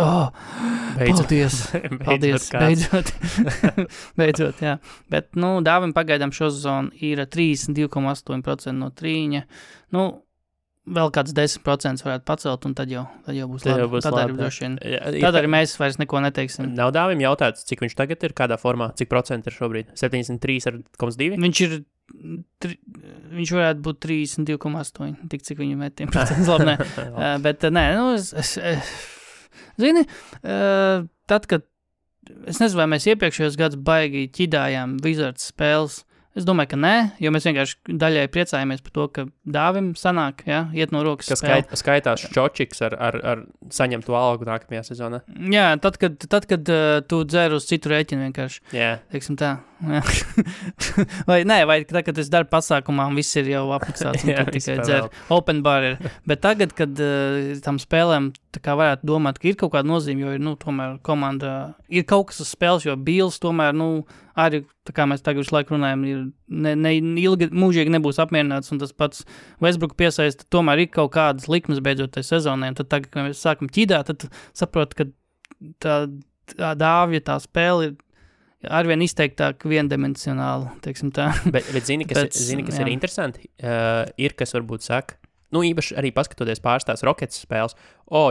beidzot, jā. Bet, Dāvim pagaidām šo sezonu ir 32,8% no trīņa, vēl kāds 10% varētu pacelt, un tad jau būs labi. Tad arī droši vien. Tad arī mēs vairs neko neteiksim. Nav Dāvim jautāts, cik viņš tagad ir, kādā formā, cik procenti ir šobrīd? 73,2? Viņš varētu būt 32,8, tik cik viņu metiem procents labi, nē. Bet, nē, zini, tad, kad, es nezinu, vai mēs iepriekšējos gadus baigi ķidājām Wizards spēles, es domāju, ka nē, jo mēs vienkārši daļai priecājamies par to, ka Dāvim sanāk, iet no rokas spēle. Skaitās Čočiks ar saņemtu algu nākamajā sezonā. Jā, tad, kad tu dzer uz citu rēķinu vienkārši. Jā. Teiksim tā. vai tad, kad es daru pasākumā un viss ir jau apmaksāts un tad tikai dzer. Open bar ir. Bet tagad, kad tam spēlēm tā kā varētu domāt, ka ir kaut kāda nozīme, jo ir, tomēr komanda, ir kaut kas uz spēles, jo Bīls tomēr, arī, tā kā mēs tagad visu laiku runājam, ilgi mūžīgi nebūs apmierināts, un tas pats Westbrook piesaista, tomēr ir kaut kādas likmes beidzot tai sezonai, un tad tagad, kad mēs sākam ķidāt, tad saprot, ka tā Dāvja, tā spēle ir arvien izteiktāk viendimensionāli, teiksim tā. Bet zini, kas ir interesanti, ir, kas varbūt saka, īpaši arī paskatoties pārstās Rockets spēles,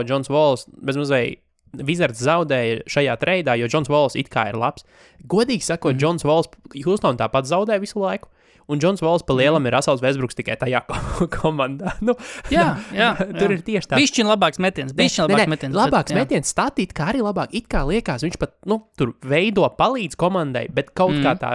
Johns Walls, bez mazliet Wizards zaudēja šajā treidā, jo Johns Walls it kā ir labs. Godīgi sakot, Johns Walls Houston tāpat zaudē visu laiku, un Johns Walls pa lielam ir Russells Westbrooks tikai tajā komandā. Jā. Tur ir tieši tā. Bišķiņ labāks metiens. Labāks metiens, statīt, kā arī labāk, it kā liekas, viņš pat, tur veido palīdz komandai, bet kaut kā tā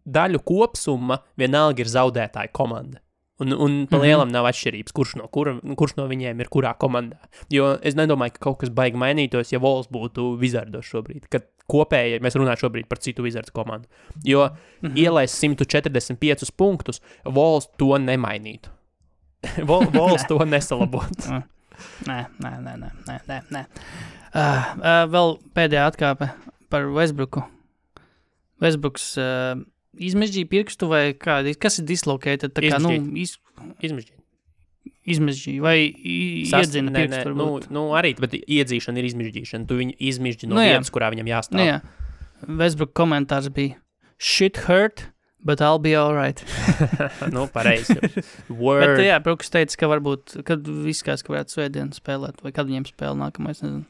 daļu kopsumma vienalga ir zaudētāja komanda. Un pa lielam nav atšķirības, kurš no viņiem ir kurā komandā. Jo es nedomāju, ka kaut kas baigi mainītos, ja Walls būtu Wizardos šobrīd, kad kopēji mēs runājam šobrīd par citu Wizards komandu. Jo ielaist 145 punktus, Walls to nemainītu. Walls to nesalabotu. Nē. Vēl pēdējā atkāpe par Westbrooku. Westbrooks izmežģīja pirkstu vai kādi? Kas ir dislocated? Tā kā, Izmežģīja vai iedzina pirkstu varbūt? Arī, bet iedzīšana ir izmežģīšana. Tu viņu izmežģi no vietas, kurā viņam jāstāv. Jā. Westbrook komentārs bija shit hurt, but I'll be alright. Pareizi. Word. Bet jā, Brooks teica, ka varbūt, kad viss kāds, ka varētu svētdienu spēlēt, vai kad viņiem spēle nākamais, nezinu.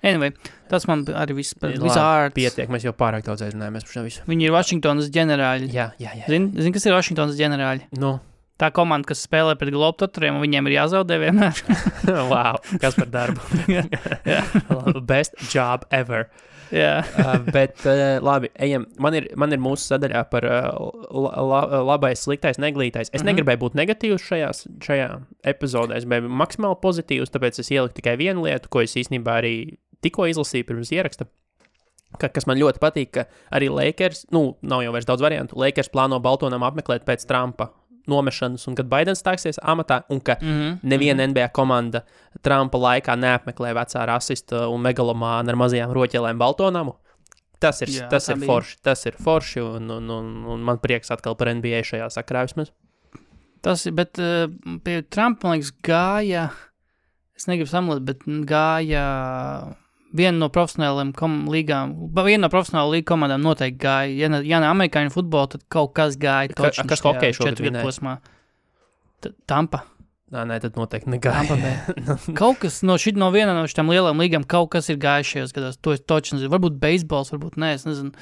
Anyway, tas man arī viss par Wizards. Pietiek, mēs jau pārāk daudz aizrunājamies par šo visu. Viņi ir Washingtonas ģenerāļi. Jā. Zini, kas ir Washingtonas ģenerāļi? Tā komanda, kas spēlē pret Globetrotteriem, un viņiem ir jāzaudē vienmēr. Wow, kas par darbu. Best job ever. Bet labi, ejam. Man ir mūsu sadaļā par labais, sliktais, neglītais. Es negribēju būt negatīvs šajā epizodē, es biju maksimāli pozitīvs, tāpēc es ieliku tikai vienu lietu, ko es īstenībā arī tikko izlasīju pirms ieraksta. Kas man ļoti patīk, ka arī Lakers, nav jau vairs daudz variantu, Lakers plāno Baltonam apmeklēt pēc Trumpa nomešanas, un kad Baidens stāksies amatā, un ka neviena NBA komanda Trumpa laikā neapmeklē vecā rasista un megalomāna ar mazajām roķelēm Baltonamu. Tas ir forši. Tas ir forši, un man prieks atkal par NBA šajā sakarā vismaz. Tas ir, bet pie Trumpa, man liekas, gāja, es negribu samulēt, bet gāja viena no profesionālajām līgām, viena no profesionāla līga komandām noteikti gāja. Ja ne amerikāņu futbolu, tad kaut kas gāja. Kas hokeju šogad vinēja? Tampa. Nē, tad noteikti negāja. Kaut kas no viena no šitām lielām līgām, kaut kas ir gājis šajos gados. To es toči nezinu. Varbūt beisbols, varbūt nē, es nezinu.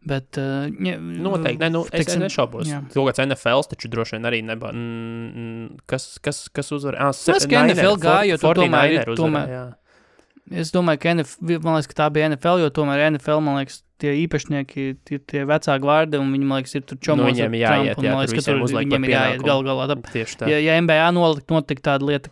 Bet, noteikti, es nešaubos. Kaut kāds NFLs taču droši vien arī nebā. Kas uzvar? Es ka NFL gāja, jo tu tomēr. Es domāju, ka man liekas, ka tā bija NFL, jo tomēr NFL, man liekas, tie īpašnieki ir tie vecāki vārdi, un viņi, man liekas, ir tur čomos ar Trumpu. Man liekas, ka tur viņiem ir jāiet galā. Ja NBA notika tāda lieta,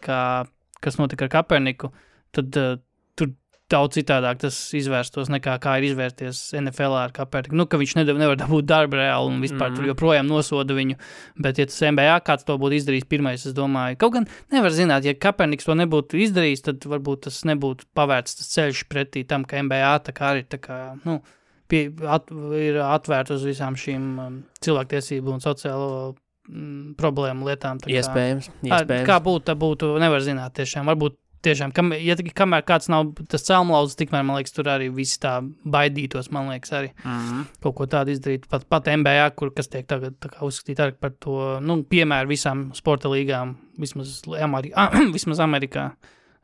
kas notika ar Kaperniku, tad tur daudz citādāk tas izvērstos nekā kā ir izvērsties NFL ar Kaperniku. Ka viņš nevar dabūt darbu reāli un vispār tur joprojām nosoda viņu. Bet, ja tas NBA kāds to būtu izdarījis pirmais, es domāju, kaut gan nevar zināt, ja Kaperniks to nebūtu izdarījis, tad varbūt tas nebūtu pavērts tas ceļš pretī tam, ka NBA tā kā arī ir atvērta uz visām šīm cilvēktiesību un sociālo problēmu lietām. Iespējams. Kā būtu, nevar zināt tiešām. Varbūt tiešām, kamēr kāds nav tas celmlauzes, tikmēr, man liekas, tur arī visi tā baidītos, man liekas, arī kaut ko tādu izdarīt. Pat NBA, kas tiek tagad tā kā uzskatīt arī par to, piemēru visām sporta līgām, vismaz Amerikā.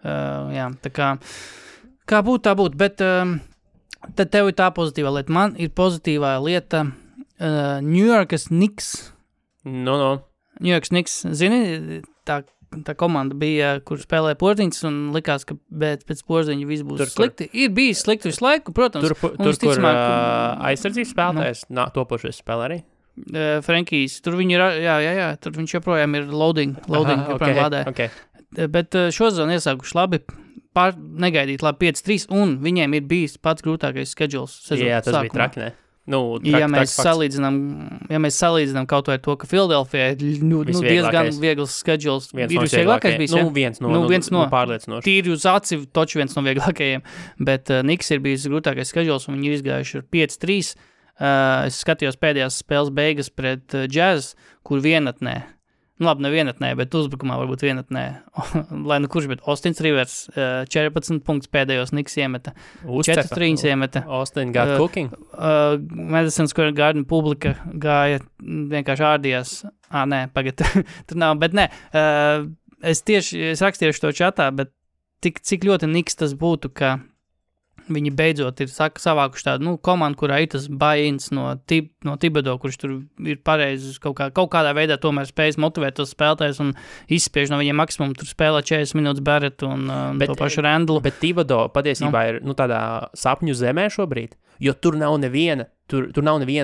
Jā, tā kā būtu, tā būtu, bet tad tev ir tā pozitīvā lieta. Man ir pozitīvā lieta New Yorkas Knicks. New Yorkas Knicks, zini, tā komanda bija, kur spēlēja Porziņš, un likās, ka pēc Porziņa viss būs slikti. Ir bijis slikti visu laiku, protams. Kur aizsardzības spēlētājs, topošais spēlē arī? Frankijs, tur viņi ir, jā, tur viņš joprojām ir loading joprojām lādē. Okay. Bet šo sezonu iesākuši labi, negaidīt labi 5-3, un viņiem ir bijis pats grūtākais schedules sezonu. Jā, tas bija traki, ne? Ja mēs salīdzinām kaut vai to, ka Philadelphia ir diezgan viegls schedules, ir visvieglākais bijis, ja? Viens no pārliecinoši. Tīri uz aci, toči viens no vieglākajiem, bet Knicks ir bijis grūtākais schedules, un viņi ir izgājuši ar 5-3. Es skatījos pēdējās spēles beigas pret Jazz, kur vienatnē, labi, ne vienatnē, bet uzbrukumā varbūt vienatnē, lai kurš, bet Austins Rivers 14 punktus pēdējos Knicks iemeta, 4-3 iemeta. Austin got cooking. Madison Square Garden publika gāja, vienkārši ārdījās. Pagad, tur nav, bet nē. Es rakstīšu to čatā, bet cik ļoti Knicks tas būtu, ka viņi beidzot ir savākuši tādu komandu, kurā ir tas buy-ins no Thibodeau, kurš tur ir pareizi kaut kādā veidā tomēr spējas motivēt tos spēlētājus un izspiež no viņiem maksimumu. Tur spēlē 40 minūtes Barrett un to pašu Randlu. Bet Thibodeau patiesībā ir tādā sapņu zemē šobrīd, jo tur nav neviena,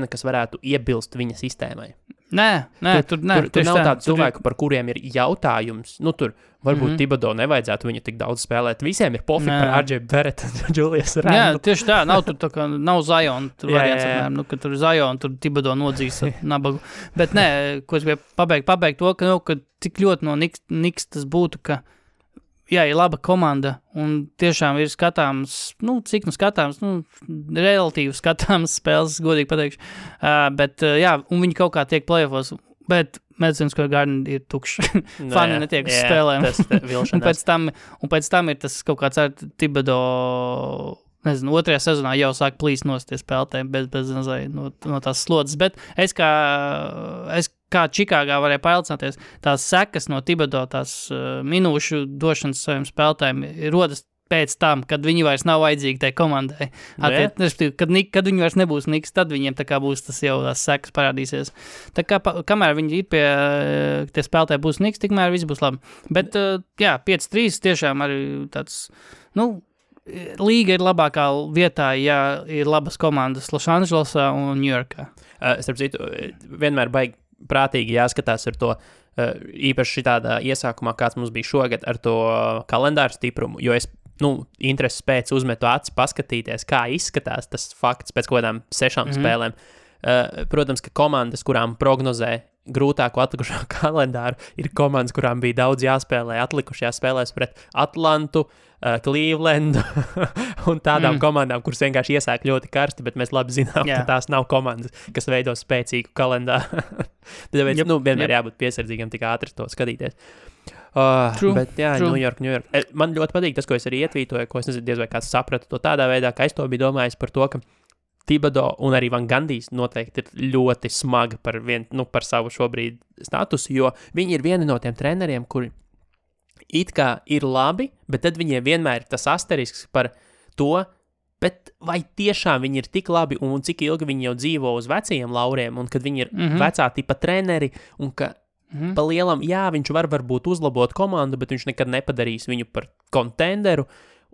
kas varētu iebilst viņa sistēmai. Nē, tur nav tādu cilvēku, par kuriem ir jautājums. Tur varbūt Thibodeau nevajadzētu viņu tik daudz spēlēt. Visiem ir pofi par RJ Barrett un Julius Randle. Jā, tieši tā. Nav tur tā kā, nav Zion. Tur variants apmēram, ka tur Zion, tur Thibodeau nodzīs nabagu. Bet nē, ko es gribēju pabeigt to, ka cik ļoti no Knicks tas būtu, ka ir laba komanda un tiešām ir skatāms, cik skatāms, relatīvi skatāms spēles, godīgi pateikšu. Bet un viņi kaut kā tiek play-offos, bet Madison Square Garden ir tukšs. Fani netiek uz spēlēm. un pēc tam ir tas kaut kāds ar Thibodeau, nezinu, otrajā sezonā jau sāk plīst no tie spēlētāji bez no tās slodzes, bet es kā Čikāgā varēju pailcināties, tās sekas no Thibodeau, tās minūšu došanas saviem spēlētājiem rodas pēc tam, kad viņi vairs nav vajadzīgi tai komandai. Kad viņi vairs nebūs Knicks, tad viņiem tā kā būs tas jau tās sekas parādīsies. Tā kā kamēr viņi ir pie tie spēlētāji būs Knicks, tikmēr viss būs labi. Bet 5-3 tiešām arī tāds, līga ir labākā vietā, ja ir labas komandas Losandželosā un Ņujorkā. Starp citu, vienmēr baigi prātīgi jāskatās ar to, īpaši šitādā iesākumā, kāds mums bija šogad ar to kalendāru stiprumu, jo es intereses pēc uzmetu aci paskatīties, kā izskatās tas fakts pēc kaut kādām 6 spēlēm. Protams, ka komandas, kurām prognozē grūtāko atlikušo kalendāru, ir komandas, kurām bija daudz jāspēlē atlikušajās spēlēs pret Atlantu, Clevelandu un tādām komandām, kuras vienkārši iesāk ļoti karsti, bet mēs labi zinām, ka tās nav komandas, kas veido spēcīgu kalendāru. Tāpēc vienmēr jābūt piesardzīgam tik ātri to skatīties. Bet New York. Man ļoti patīk tas, ko es arī ietvītoju, ko es nezinu, diez vai kāds saprata to tādā veidā, ka es to biju domājis par to, ka Thibodeau un arī Van Gandijs noteikti ir ļoti smagi par savu šobrīd statusu, jo viņi ir vieni no tiem treneriem, kuri it kā ir labi, bet tad viņiem vienmēr ir tas asterisks par to, bet vai tiešām viņi ir tik labi un cik ilgi viņi jau dzīvo uz vecajiem lauriem un kad viņi ir vecā tipa treneri un ka pa lielam, viņš varbūt uzlabot komandu, bet viņš nekad nepadarīs viņu par kontenderu.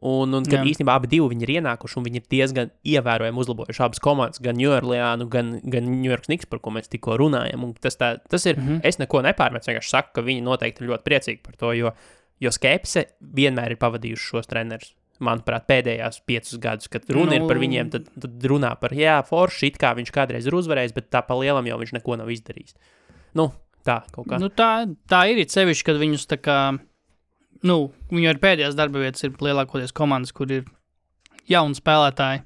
Un kad īstenībā abi divi viņi ir ienākuši un viņi ir diezgan ievērojami uzlabojuši abas komandas, gan New Orleanu, gan New York Knicks, par ko mēs tikko runājam. Un tas ir, es neko nepārmetu, vienkārši saku, ka viņi noteikti ir ļoti priecīgi par to, jo skepse vienmēr ir pavadījuši šos trenerus. Manuprāt, pēdējās 5 gadus, kad runa ir par viņiem, tad runā par, forši, it kā viņš kādreiz ir uzvarējis, bet tā pa lielam jau viņš neko nav izdarījis. Tā kaut kā. Tā ir sevišķi, kad viņus tā kā, viņu ar pēdējās darba vietas ir lielākoties komandas, kur ir jauni spēlētāji,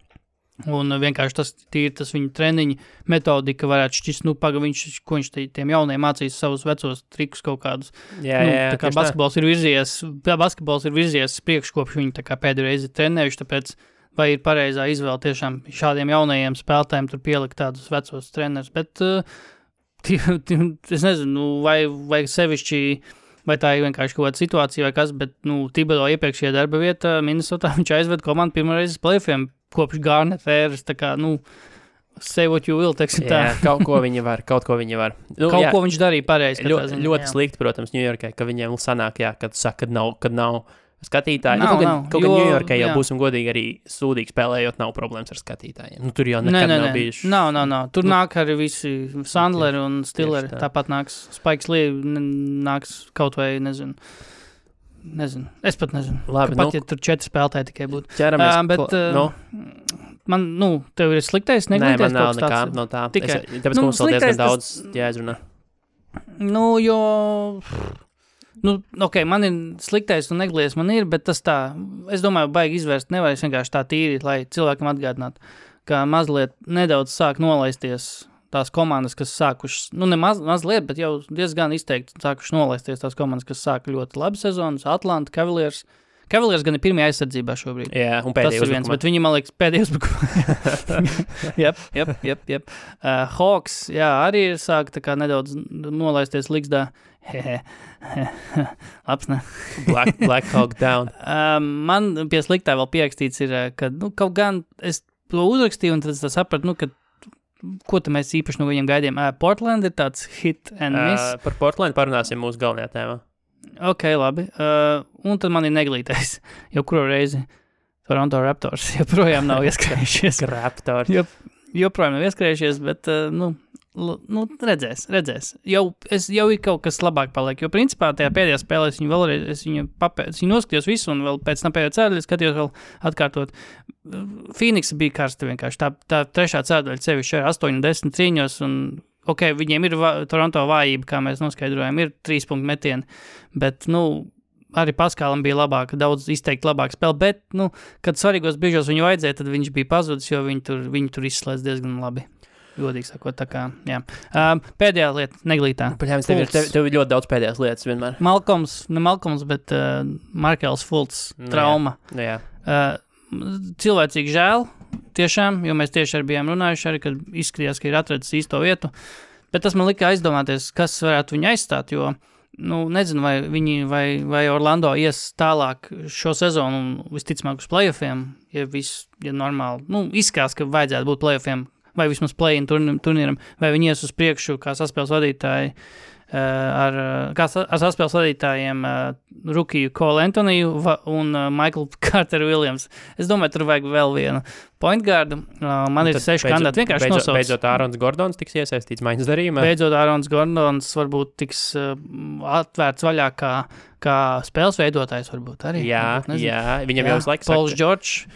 un vienkārši tas viņu treniņu metodika varētu šķist, ko viņš tiem jauniem mācīs savus vecos trikus kaut kādus. Tā kā basketbols ir virzies priekš, kopš viņi tā kā pēdējo reizi trenējuši, tāpēc vai ir pareizā izvēle tiešām šādiem jaunajiem spēlētājiem tur pielikt tādus vecos trenerus, bet es nezinu, vai sevišķi, vai tā ir vienkārši kaut kāda situācija vai kas, bet, Thibodeau iepriekšējā darba vieta Minnesotā, viņš aizved komandu pirmoreiz uz play-offiem kopš Garnett ēras, tā kā, say what you will, teiksim tā. Kaut ko viņi var. Ko viņš darīja pareizi. Ļoti slikti, protams, Ņujorkai, ka viņiem sanāk, kad saka, kad nav skatītāji. Kaut gan Ņujorkai jau būsim godīgi arī sūdīgi spēlējot, nav problēmas ar skatītājiem. Tur jau nekad nav bijuši. Nav. Tur nāk arī visi Sandleri un Stilleri. Tāpat nāks Spikes Lee, nāks kaut vai, nezinu. Es pat nezinu. Labi, pat, ja tur 4 spēlētāji tikai būtu. Ķeramies. Man, tev ir sliktais neglīties kaut kas tāds? Nē, man nav nekā no tā. Tāpēc, ka mums vēl diezgan daudz jāizrunā. Man ir sliktais un neglīties man ir, bet tas tā, es domāju, baigi izvērst nevar vienkārši tā tīri, lai cilvēkam atgādinātu, ka mazliet nedaudz sāk nolaisties tās komandas, kas sākušas, ne mazliet, bet jau diezgan izteikti sākušas nolaisties tās komandas, kas sāka ļoti labi sezonas, Atlanta, Cavaliers. Cavaliers gan ir pirmajā aizsardzībā šobrīd. Jā, un pēdējā uzbrukumā. Bet viņi, man liekas, pēdējā uzbrukumā. Jep. Hawks, arī sāk tā kā nedaudz nolaisties liksdā. Labs, ne? Black Hawk down. Man pie sliktā vēl pierakstīts ir, ka, kaut gan es to uzrakstīju un tad sapratu, ka ko te mēs īpaši no viņiem gaidījām? Portland ir tāds hit and miss. Par Portland parunāsim mūsu galvenajā tēmā. Ok, labi. Un tad man ir neglītais. Jau kuru reizi Toronto Raptors joprojām nav ieskrējušies. Raptors. Joprojām nav ieskrējušies, bet, redzēs. Jau ir kaut kas labāk paliek, jo principā tajā pēdējā spēlē es viņu noskatījos visu un vēl pēc tam pēdējā cēdaļa skatījos vēl atkārtot. Phoenix bija karsta vienkārši. Tā trešā cēdaļa sevišķi ar 8 un 10 cīņos un viņiem ir Toronto vājība, kā mēs noskaidrojam, ir 3 punktu metieni, bet, arī Paskālam bija daudz izteikti labāk spēle, bet, kad svarīgos brīžos viņu vajadzēja, tad viņš bija pazudis, jo viņi tur izslēdz diezgan labi. Godīgi sakot, tā kā, jā. Pēdējā lieta, neglītā. Tev ir ļoti daudz pēdējās lietas vienmēr. Malcolms, bet Markels Fultz trauma. Jā. Cilvēcīgi žēl, tiešām, jo mēs tieši arī bijām runājuši, arī, kad izskatījās, ka ir atradzis īsto vietu, bet tas man lika aizdomāties, kas varētu viņu aizstāt, jo, nezinu, vai Orlando ies tālāk šo sezonu un visticamāk uz playoffiem, ja normāli, izskās, ka vajadzētu būt playoffiem, vai vismaz play-in turnīram, vai viņi ies uz priekšu, kā saspēles vadītāji ar saspēles vadītājiem Rukiju Cole Antoniju un Michael Carter Williams. Es domāju, tur vajag vēl vienu point guardu. Man ir 6 kandidāti. Vienkārši nosauc. Beidzot Ārons Gordons tiks iesaistīts maiņas darījumā. Beidzot Ārons Gordons varbūt tiks atvērts vaļā kā spēles veidotājs varbūt arī. Jā, viņam jau uz laiku Pauls George,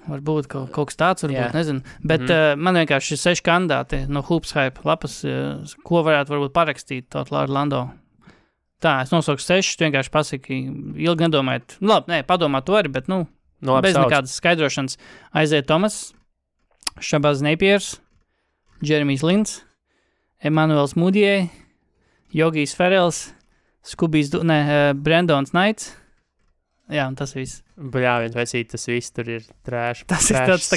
varbūt kaut kas tāds, varbūt, nezinu. Bet man vienkārši ir 6 kandidāti no Hoops Hype lapas, ko varētu parakstīt tot Orlando. Tā, es nosauku 6, vienkārši pasaki, ilgi nedomājot. Labi, padomāt to arī, bet, bez nekādas skaidrošanas. Isaiah Thomas, Shabazz Napiers, Jeremijs Lins, Emanuels Mudiej, Jogijs Ferels, Brandons Knights. Jā, un tas viss. Bļāviens, vai tas viss tur ir trēš. Tas ir tāds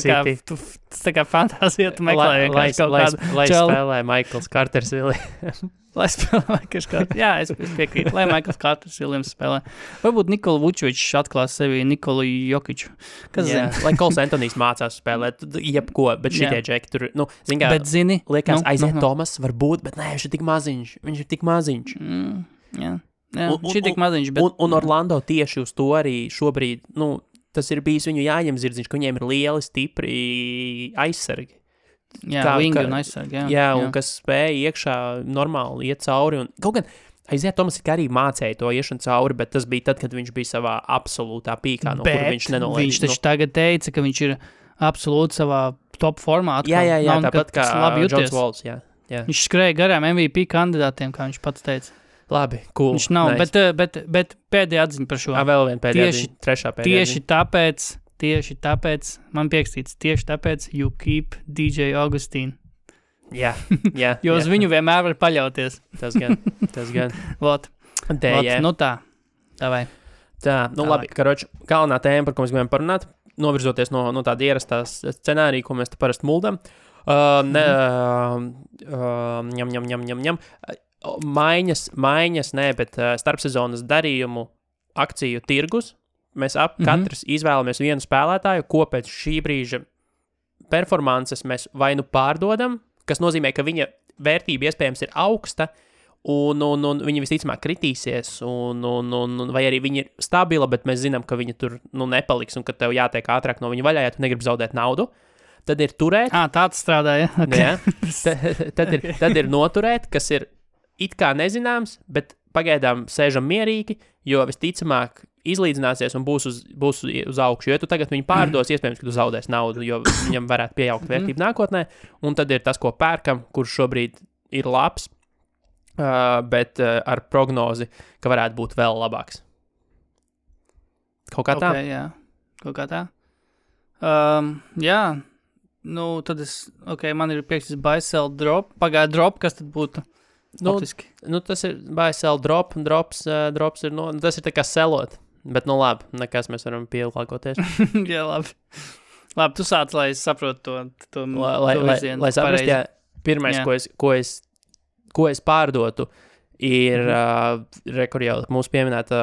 tā kā fantāzija, tu meklē vienkārši kaut kādu Lai spēlē Michaels Carters Williams. Lai spēlē Michaels Carters. Jā, es piekrītu. Lai Michaels Carters Williams spēlē. Varbūt Nikola Vučovičs atklās sevi Nikolu Jokiču. Kas zina? Lai Kols Antonijs mācās spēlēt jebko, bet šitie džeki tur, zin kā, bet zini, liekas, Isaiah Thomas var būt, bet nē, viņš ir tik maziņš. Jā. Šī tik maziņš, bet... Un Orlando tieši uz to arī šobrīd, tas ir bijis viņu jāņem zirdziņš, ka viņiem ir lieli, stipri aizsargi. Jā, vingi un aizsargi, jā. Un kas spēja iekšā normāli iet cauri. Un kaut gan Isaiah Thomas arī mācēja to iešanu cauri, bet tas bija tad, kad viņš bija savā absolūtā pīkā, no kur viņš nenolēja. Viņš taču tagad teica, ka viņš ir absolūti savā top formā. Jā, tāpat kā Johns Walls, jā. Viņš skrēja garām MVP kandidātiem, kā viņš pats teica. Labi, cool. Viņš nav, nice. bet pēdējā atziņa par šo. Vēl viena pēdējā atziņa, trešā pēdējā atziņa. Tieši tāpēc, man piekstīts, tieši tāpēc you keep DJ Augustīnu. Jā. Jo uz viņu vienmēr var paļauties. Tas gan. Vot, tā, davai. Tā, labi, karoči, galvenā tēma, par ko mēs gribējām parunāt, novirzoties no tāda ierastās scenārija, ko mēs te parasti muldam. Ņem. Maiņas, bet starpsezonas darījumu akciju tirgus. Mēs katrs izvēlamies vienu spēlētāju, ko pēc šī brīža performances mēs vai pārdodam, kas nozīmē, ka viņa vērtība iespējams ir augsta, un viņa visticamāk kritīsies, vai arī viņa ir stabila, bet mēs zinām, ka viņa tur nepaliks, un ka tev jātiek ātrāk no viņa vaļā, ja tu negribi zaudēt naudu. Tad ir turēt. Tāds strādā, ja? Okay. Tad ir noturēt, kas ir it kā nezināms, bet pagaidām sēžam mierīgi, jo visticamāk izlīdzināsies un būs uz augšu. Jo tu tagad viņu pārdos, iespējams, ka tu zaudēs naudu, jo viņam varētu pieaugt vērtību nākotnē, un tad ir tas, ko pērkam, kurš šobrīd ir labs, bet ar prognozi, ka varētu būt vēl labāks. Kaut kā tā? Jā, kaut kā tā. Jā, tad man ir piekstis buy, sell, drop. Pagāja drop, kas tad būtu? Tas ir buy, sell, drop, un drops ir, tas ir tā kā selot, bet labi, nekas mēs varam pielāgoties. Jā, labi. Labi, tu sāc, lai es saprotu to virzienu. Lai saprast, jā, pirmais, ko es pārdotu, ir kur jau mūsu pieminēta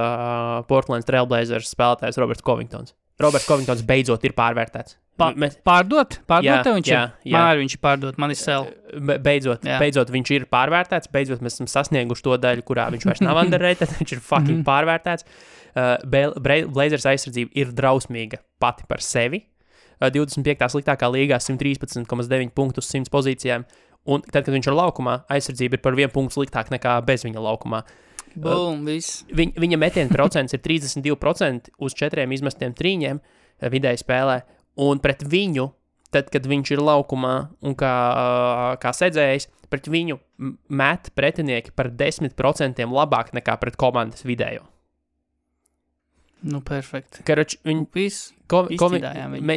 Portland Trailblazers spēlētājs Roberts Covingtons. Roberts Covingtons beidzot ir pārvērtēts. Pārdot tev viņš ir? Jā. Man arī viņš ir pārdot, man ir sell. Beidzot viņš ir pārvērtēts, beidzot mēs esam sasnieguši to daļu, kurā viņš vairs nav underrated, viņš ir fucking pārvērtēts. Blazers aizsardzība ir drausmīga pati par sevi. 25. sliktākā līgā 113,9 punktu uz 100 pozīcijām, un tad, kad viņš ir laukumā, aizsardzība ir par 1 punktu sliktāk nekā bez viņa laukumā. Boom, viss. Viņa metiena procents ir 32% uz 4 izmestiem trīņiem vidēji spēlē, un pret viņu, tad, kad viņš ir laukumā un kā sedzējs, pret viņu met pretinieki par 10% labāk nekā pret komandas vidējo. Perfekti. Karoči, izcīdājām viņu.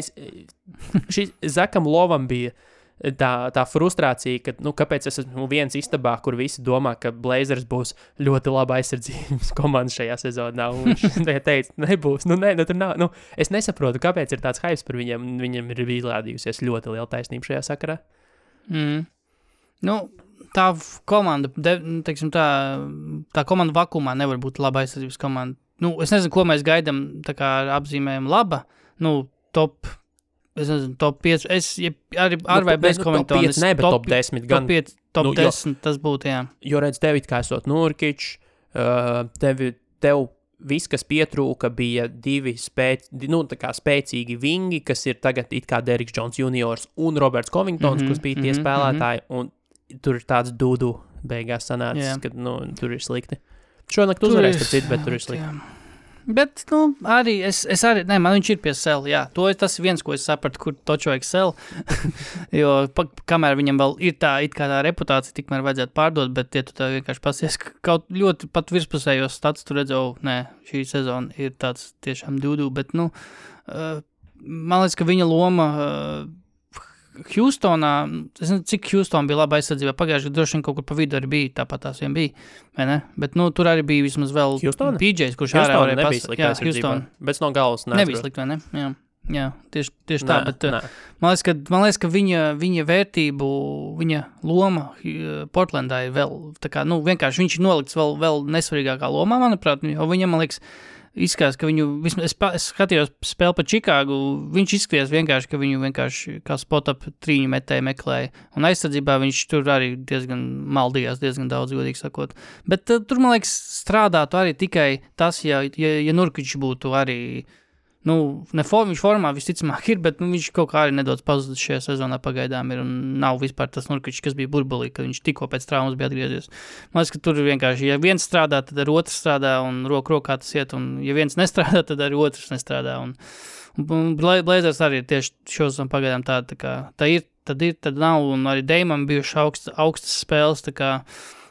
Zakam Lovam bija tā frustrācija, ka, kāpēc es esmu viens istabā, kur visi domā, ka Blazers būs ļoti laba aizsardzības komanda šajā sezonā, un viņš teica, nebūs, tur nav, es nesaprotu, kāpēc ir tāds hypes par viņiem, un viņam ir izrādījusies ļoti liela taisnība šajā sakarā. Tā komanda, teiksim tā komanda vakumā nevar būt laba aizsardzības komanda. Es nezinu, ko mēs gaidām, tā kā ar apzīmējumu laba, top. es nezinu, top 5, ar vai bez Covingtona. Top 5, ne, bet top 10 gan. Top 5, top 10, tas būtu, jā. Jo redz, tev it kā esot Nurkič, tev viss, kas pietrūka, bija divi spēcīgi vingi, kas ir tagad it kā Derrick Jones juniors un Roberts Covingtons, kas bija tie spēlētāji, un tur ir tāds dudu beigās sanācis, kad, tur ir slikti. Šonakt uzvarēs, bet tur ir slikti. Jā. Bet, arī es arī, man viņš ir pie sel, jā. Tas ir viens, ko es sapratu, kur toču vajag sel, jo kamēr viņam vēl ir tā, it kā tā reputācija, tikmēr vajadzētu pārdot, bet ja tu tā vienkārši pasies, kaut ļoti pat virspusējos stats, tu redzēju, šī sezona ir tāds tiešām dudu, bet, man liekas, ka viņa loma Houstonā, es nezinu, cik Houston bija laba aizsardzībā, pagājuši, droši vien kaut kur pa vidu arī bija, tāpat tās vien bija, vai ne? Bet, tur arī bija vismaz vēl PJs, kurš ārā varēja pasaka. Jā, Houston. Bet no galvas nebija slikt, vai ne? Jā, tieši tā, bet man liekas, ka viņa vērtību, viņa loma Portlandā ir vēl, tā kā, vienkārši viņš ir nolikts vēl nesvarīgākā lomā, manuprāt, jo viņam, man liekas, izskatās, ka viņu, es skatījos spēli par Čikāgu, viņš izskatījās vienkārši, ka viņu vienkārši kā spot-up trīņu metēju meklēja, un aizsardzībā viņš tur arī diezgan maldījās, diezgan daudz, godīgi sakot. Bet tur, man liekas, strādātu arī tikai tas, ja Nurkič būtu arī, viņš formā visticamāk ir, bet viņš kaut kā arī nedaudz pazudis šajā sezonā pagaidām ir, un nav vispār tas Nurkič, kas bija burbulī, kad viņš tikko pēc traumas bija atgriezies. Man liekas, ka tur vienkārši, ja viens strādā, tad ar otrs strādā, un rokā tas iet, un ja viens nestrādā, tad arī otrs nestrādā, un Blazers arī tieši šosam pagaidām tā kā, tad nav, un arī Damam bijuši augstas spēles, tā kā,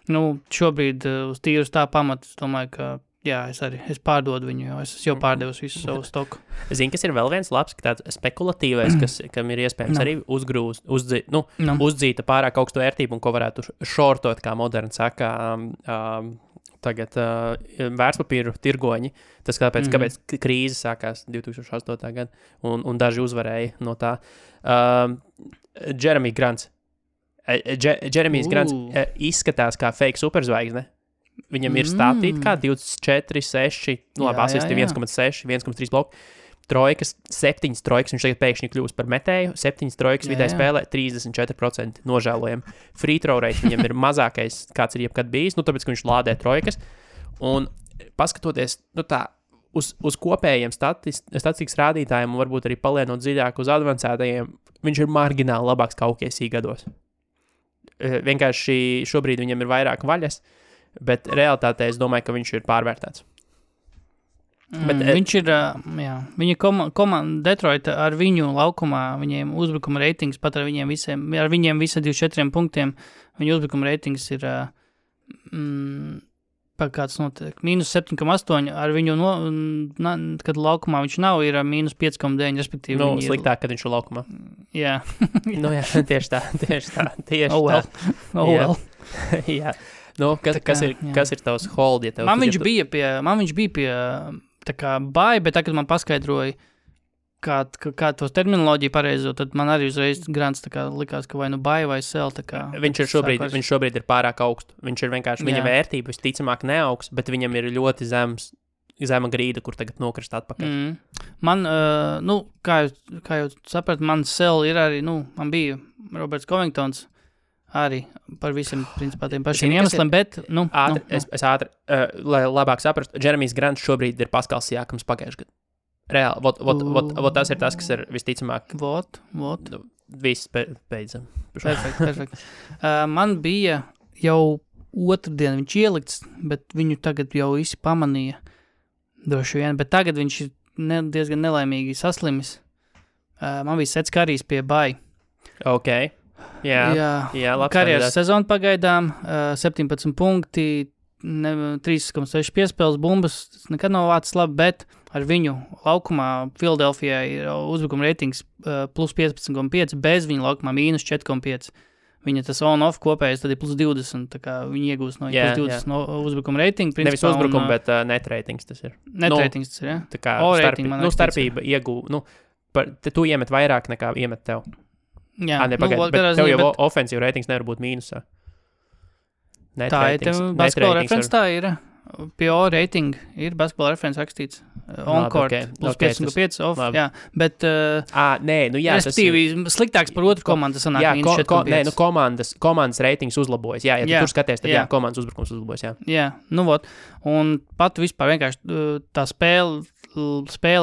šobrīd uz tīrus tā pamata, es domāju, ka jā, es pārdodu viņu, jo es jau pārdevusi visu savu stoku. Zini, kas ir vēl viens labs, ka tāds spekulatīvais, kam ir iespējams arī uzdzīta pārāk augstu vērtību un ko varētu šortot, kā moderni saka, tagad vērtspapīru tirgoņi. Tas kāpēc krīze sākās 2008. Gada un daži uzvarēja no tā. Jeremy Grants. Jeremijs Grants izskatās kā fake superzvaigzne. Viņam ir stātīt kā 24, 6, labi, asisti 1,6, 1,3 bloku, trojkas, 7 trojkas, viņš tagad pēkšņi kļūst par metēju, 7 trojkas vidēji spēlē, 34% nožēlojam. Free throw rate viņam ir mazākais, kāds ir jebkad bijis, tāpēc, ka viņš lādē trojkas, un paskatoties, uz kopējiem statistikas rādītājiem, un varbūt arī palienot dziļāk uz advancētajiem, viņš ir margināli labāks kā OKC gados. Vienkārši šobrīd viņam ir vairāk vaļas, bet realitātē es domāju, ka viņš ir pārvērtēts. Viņš ir, viņa komanda Detroita ar viņu laukumā, viņiem uzbrukuma reitings, pat ar viņiem visiem 24 punktiem, viņa uzbrukuma reitings ir, kāds notiek, -7,8, ar viņu, kad laukumā viņš nav, ir -5,9, respektīvi. Sliktāk, kad viņš ir laukumā. Jā. Jā, tieši tā. Oh well. Jā. Kas ir tavs hold? Ja man viņš bija pie tā kā Bai, bet tagad man paskaidroja, kā tos terminoloģiju pareizo, tad man arī uzreiz Grants tā kā likās, ka vai Bai vai Sel. Viņš šobrīd ir pārāk augstu. Viņš ir vienkārši, viņa vērtība visticamāk neaugs, bet viņam ir ļoti zema grīda, kur tagad nokrist atpakaļ. Man, kā jau saprat, man Sel ir arī, man bija Roberts Covingtons, arī par visiem, principā, tiem pašiem iemesliem, bet, Es ātri, lai labāk saprastu, Jeremijs Grants šobrīd ir Paskals Siakams pagājuši gadu. Reāli, tas ir tas, kas ir visticamāk. Viss beidzam. Perfekt. Man bija jau otrdien viņš ielikts, bet viņu tagad jau visi pamanīja droši vien, bet tagad viņš ir diezgan nelaimīgi saslimis. Man bija Sets Karijs pie Bai. Ok. Jā, karjeras sezona pagaidām, 17 punkti, 3,6 piespēles bumbas, tas nekad nav vācis labi, bet ar viņu laukumā Philadelphijā ir uzbrukuma reitings plus 15,5, bez viņa laukumā minus 4,5. Viņa tas on-off kopējais tad ir plus 20, tā kā viņi iegūst no plus 20 no uzbrukuma reitinga. Nevis uzbrukuma, bet net reitings tas ir. Net reitings tas ir, jā. Tā kā starpība iegū, tu iemet vairāk nekā iemet tev. Jā, bet tev jau ofensīva reitings nevar būt mīnusā. Tā ir, basketbola reference tā ir. PO rating ir basketbola referents rakstīts. On-court, plus 5,5 off, jā. Bet, nē, nu jā. Respektīvi, sliktāks par otru komandu sanāk mīnus 4,5. Nē, nu komandas reitings uzlabojas, jā. Ja tu tur skaties, tad jā, komandas uzbrukums uzlabojas, jā. Jā, nu vot. Un pat vispār vienkārši tā spēle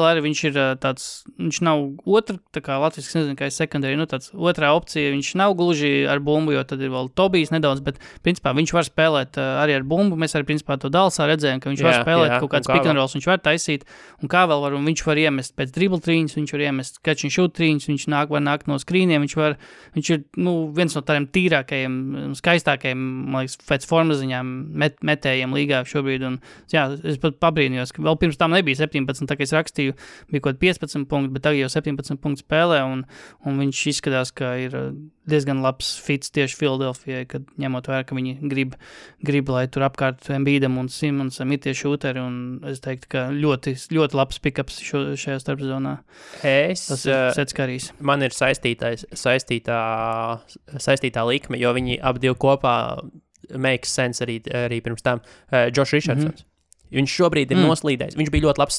arī viņš ir tāds, viņš nav otra, tā kā Latvijas, nezinu, kā ir secondary, nu tāds otrā opcija, viņš nav gluži ar bumbu, jo tad ir vēl Tobijs nedaudz, bet principā viņš var spēlēt arī ar bumbu, mēs arī principā to Dalsā redzējām, ka viņš var spēlēt kaut kāds pick and rolls, viņš var taisīt, un kā vēl var, un viņš var iemest pēc dribble trīņas, viņš var iemest catch and shoot trīņas, viņš var nākt no skrīniem, viņš ir, nu, viens no tādiem tīrākajiem, skaistākajiem, man liekas, pēc formas ziņām metējiem līgā šobrīd, un jā, es pat pabrīnījos, ka vēl pirms tam nebija 17, tā kā es rakstīju, bija kaut 15 punkti, bet tagad jau 17 punktu spēlē, un viņš izskatās, ka ir diezgan labs fits tieši Philadelphijai, kad ņemot vērā, ka viņi grib, lai tur apkārt Embiidam un Simonsam ir tie šūteri, un es teiktu, ka ļoti, ļoti labs pick-ups šajā starpzonā. Tas ir Setskarīs. Man ir saistītā likme, jo viņi ap divi kopā makes sense arī pirms tam. Josh Richardsons. Viņš šobrīd ir noslīdējis. Viņš bija ļoti labs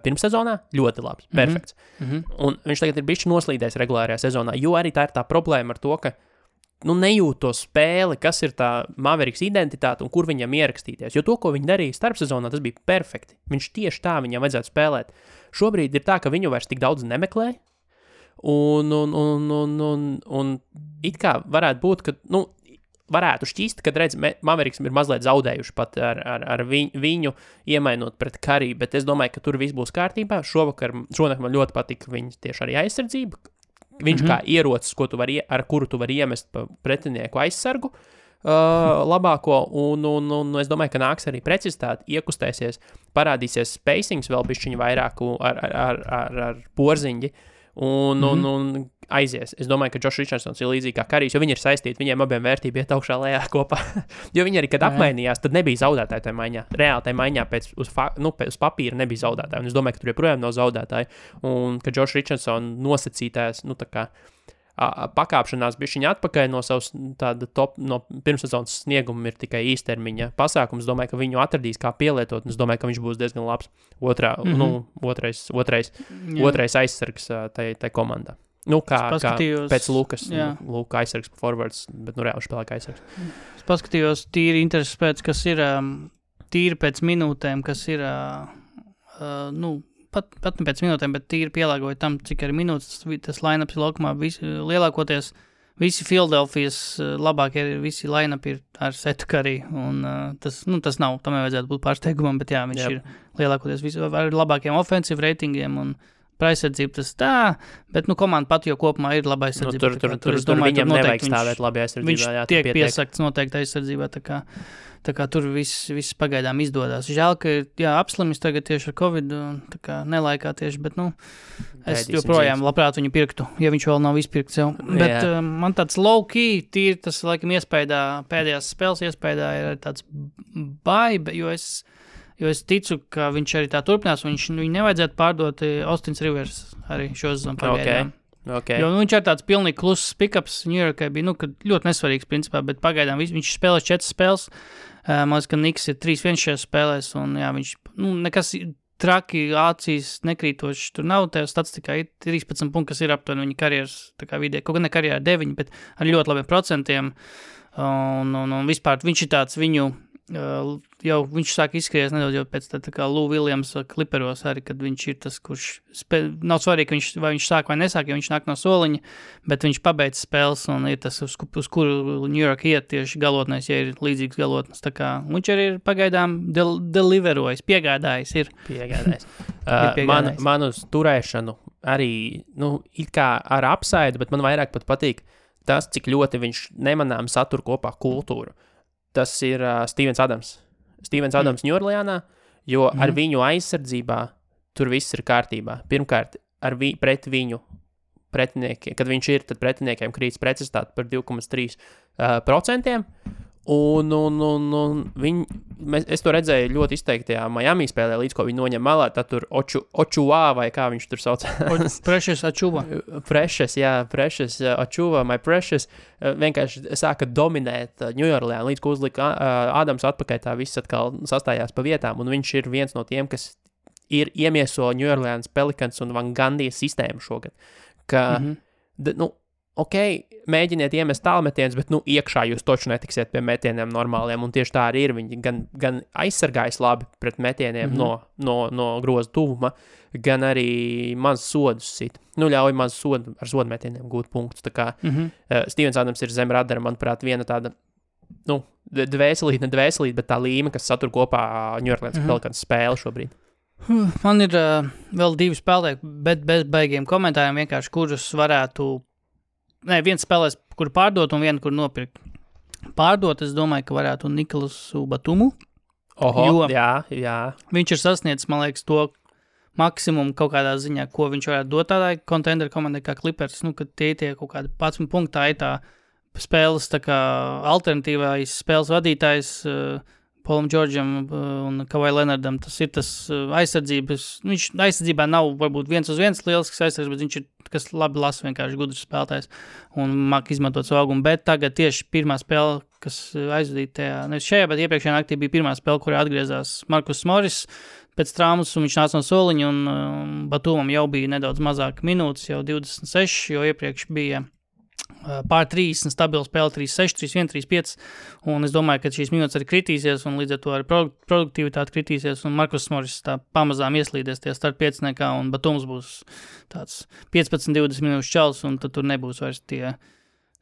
pirmssezonā, ļoti labs, perfekts. Un viņš tagad ir bišķi noslīdējis regulārajā sezonā, jo arī tā ir tā problēma ar to, ka nejūt to spēli, kas ir tā Mavericks identitāte un kur viņam ierakstīties. Jo to, ko viņi darīja starpsezonā, tas bija perfekti. Viņš tieši tā viņam vajadzētu spēlēt. Šobrīd ir tā, ka viņu vairs tik daudz nemeklē, un it kā varētu būt, ka, varētu šķist, kad redz, Mavericks ir mazliet zaudējuši pat ar viņu iemainot pret Curry, bet es domāju, ka tur viss būs kārtībā. Šonakt man ļoti patika viņa tieši arī aizsardzība. Viņš kā ierocis, ar kuru tu vari iemest pretinieku aizsargu labāko, un es domāju, ka nāks arī precizitāte, iekustēsies, parādīsies spacings vēl bišķiņu vairāku ar porziņģi, un aizies. Es domāju, ka Josh Richardsons ir līdzīgi kā Karijs, jo viņi ir saistīti, viņiem abiem vērtība iet augšā lejā kopā. Jo viņi arī, kad apmainījās, tad nebija zaudētāji tajā maiņā. Reāli tajā maiņā uz papīra nebija zaudētāji. Un es domāju, ka tur joprojām nav zaudētāji. Un ka Josh Richardson nosacītājs, tā kā pakāpšanās bišķiņa atpakaļ no savas tāda no pirmssezonas snieguma ir tikai īstermiņa pasākums. Es domāju, ka viņu atradīs kā pielietot, un es domāju, ka viņš būs diezgan labs otrais aizsargs tai komandā. Kā pēc Lukas, Luka aizsargs forwards, bet reāli spēlē kā aizsargs. Es paskatījos tīri intereses pēc, kas ir tīri pēc minūtēm, kas ir, pat ne pēc minūtēm, bet tīri pielāgoja tam, cik arī minūtes tas line-ups ir laukumā. Lielākoties visi Philadelphijas labākie, visi line-up ir ar Setu Curry, un tas nav, tam nevajadzētu būt pārsteigumam, bet jā, viņš ir lielākoties visi ar labākiem offensive ratingiem, un aizsardzība tas tā, bet komanda pat jau kopumā ir laba aizsardzība. Tur viņam nevajag stāvēt labi aizsardzībā. Viņš tiek piesakts noteikti aizsardzībā, tā kā tur viss pagaidām izdodas. Žēl, ka apslimis tagad tieši ar Covid, tā kā nelaikā tieši, bet es joprojām labprāt viņu pirktu, ja viņš vēl nav izpirkts jau. Bet man tāds low-key, tīri tas laikam pēdējās spēles iespējā ir tāds baiba, jo es ticu, ka viņš arī tā turpinās, un viņu nevajadzētu pārdot Austins Rivers arī šo sezonu pagaidām. Okay. Jo viņš ir tāds pilnīgi kluss pick-ups New Yorkai bija, ļoti nesvarīgs principā, bet pagaidām viņš spēlēs 4 spēles, man liekas, ka Niks ir 3-1 šajās spēlēs, un jā, viņš, nekas traki, acīs nekrītoši, tur nav, tajā statistikā ir 13 punkti, kas ir aptuveni viņa karjeras, tā kā vidē, kaut gan ne karjerā 9, bet ar ļoti labiem procentiem, un vispār viņš ir tāds viņu, jau viņš sāk izskries nedaudz jau pēc tā kā Lou Williams Clipperos arī, kad viņš ir tas, kurš nav svarīgi, vai viņš sāk vai nesāk, jo viņš nāk no soliņa, bet viņš pabeidz spēles un ir tas, uz kuru New York iet tieši galotnēs, ja ir līdzīgs galotnes. Tā kā viņš arī ir pagaidām deliverojis, piegādājis ir. Piegādājis. Man uz turēšanu arī, it kā ar apsaidu, bet man vairāk pat patīk tas, cik ļoti viņš nemanām satur kopā kultūru. Tas ir Stevens Adams. Stevens Adams Ņūorleānā, jo ar viņu aizsardzībā tur viss ir kārtībā. Pirmkārt, pret viņu pretiniekiem, kad viņš ir, tad pretiniekiem krītas precizitāte par 2,3%, Es to redzēju ļoti izteiktajā Miami spēlē, līdz ko viņi noņem malā, tad tur Ochoa vai kā viņš tur sauc. Precious Achuva. Precious Achuva, my Precious, vienkārši sāka dominēt New Orleans, līdz ko uzlika Ādams atpakaļ, tā viss atkal sastājās pa vietām, un viņš ir viens no tiem, kas ir iemieso New Orleans Pelicans un Van Gundy sistēmu šogad, ka, mēģiniet iemest tālmetienus, bet, iekšā jūs toču netiksiet pie metieniem normāliem, un tieši tā arī ir. Viņi gan aizsargājas labi pret metieniem no groza tuvuma, gan arī maz sodus sit. Ļauj maz ar sodu metieniem gūt punktus. Tā kā Stevens Adams ir zem radara, manuprāt, viena tāda, dvēselīt, bet tā līme, kas satur kopā New Orleans Pelicans spēli šobrīd. Man ir vēl 2 spēlēji, bet bez baigiem komentāriem vienkārši, kurus varētu viens spēlēs, kur pārdot un vienu, kur nopirkt. Pārdot, es domāju, ka varētu Nikolasu Batumu. Jā. Viņš ir sasniedzis, man liekas, to maksimumu kaut kādā ziņā, ko viņš varētu dot tādai contender komandai kā Clippers, kad tie kaut kādi 11 punktā ir tā spēles tā kā alternatīvais spēles vadītājs Paulam Džordžam un Kawhi Leonardam. Tas ir tas aizsardzības. Viņš aizsardzībā nav varbūt 1-1 lielisks aizsardzības, bet viņš ir, kas labi lasa, vienkārši gudrs spēlētājs un māk izmantot savu augumu. Bet tagad tieši pirmā spēle, kas aizvadīja tajā, nevis šajā, bet iepriekšējā naktī bija pirmā spēle, kurā atgriezās Marcus Morris pēc traumas, un viņš nāca no soliņa, un Batumam jau bija nedaudz mazāk minūtes, jau 26, jo iepriekš bija pār 30, stabila spēle 3-6, 3-1, 3-5, un es domāju, ka šīs minūtes arī kritīsies, un līdz ar to arī produktivitāte kritīsies, un Marcus Morris tā pamazām ieslīdies tie start 5-nekā, un Batums būs tāds 15-20 minūšu čals, un tad tur nebūs vairs tie,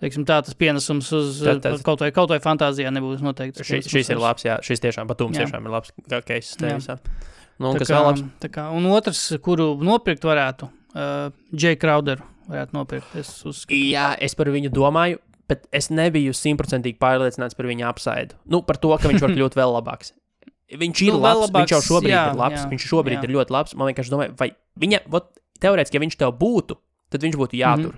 teiksim tā, tas pienesums uz kaut vai fantāzijā nebūs noteikti. Šis ir labs, jā, šis tiešām Batums tiešām ir labs case tevisā. Un otrs, kuru nopirkt varētu, Jay Crowderu varētu nopirkt, es uzskatu. Jā, es par viņu domāju, bet es nebiju 100% pārliecināts par viņa upside. Par to, ka viņš var kļūt vēl labāks. Viņš ir labs, viņš jau šobrīd ir labs, viņš šobrīd ir ļoti labs. Man vienkārši domāju, vai viņa, teorētiski, ja viņš tev būtu, tad viņš būtu jātur.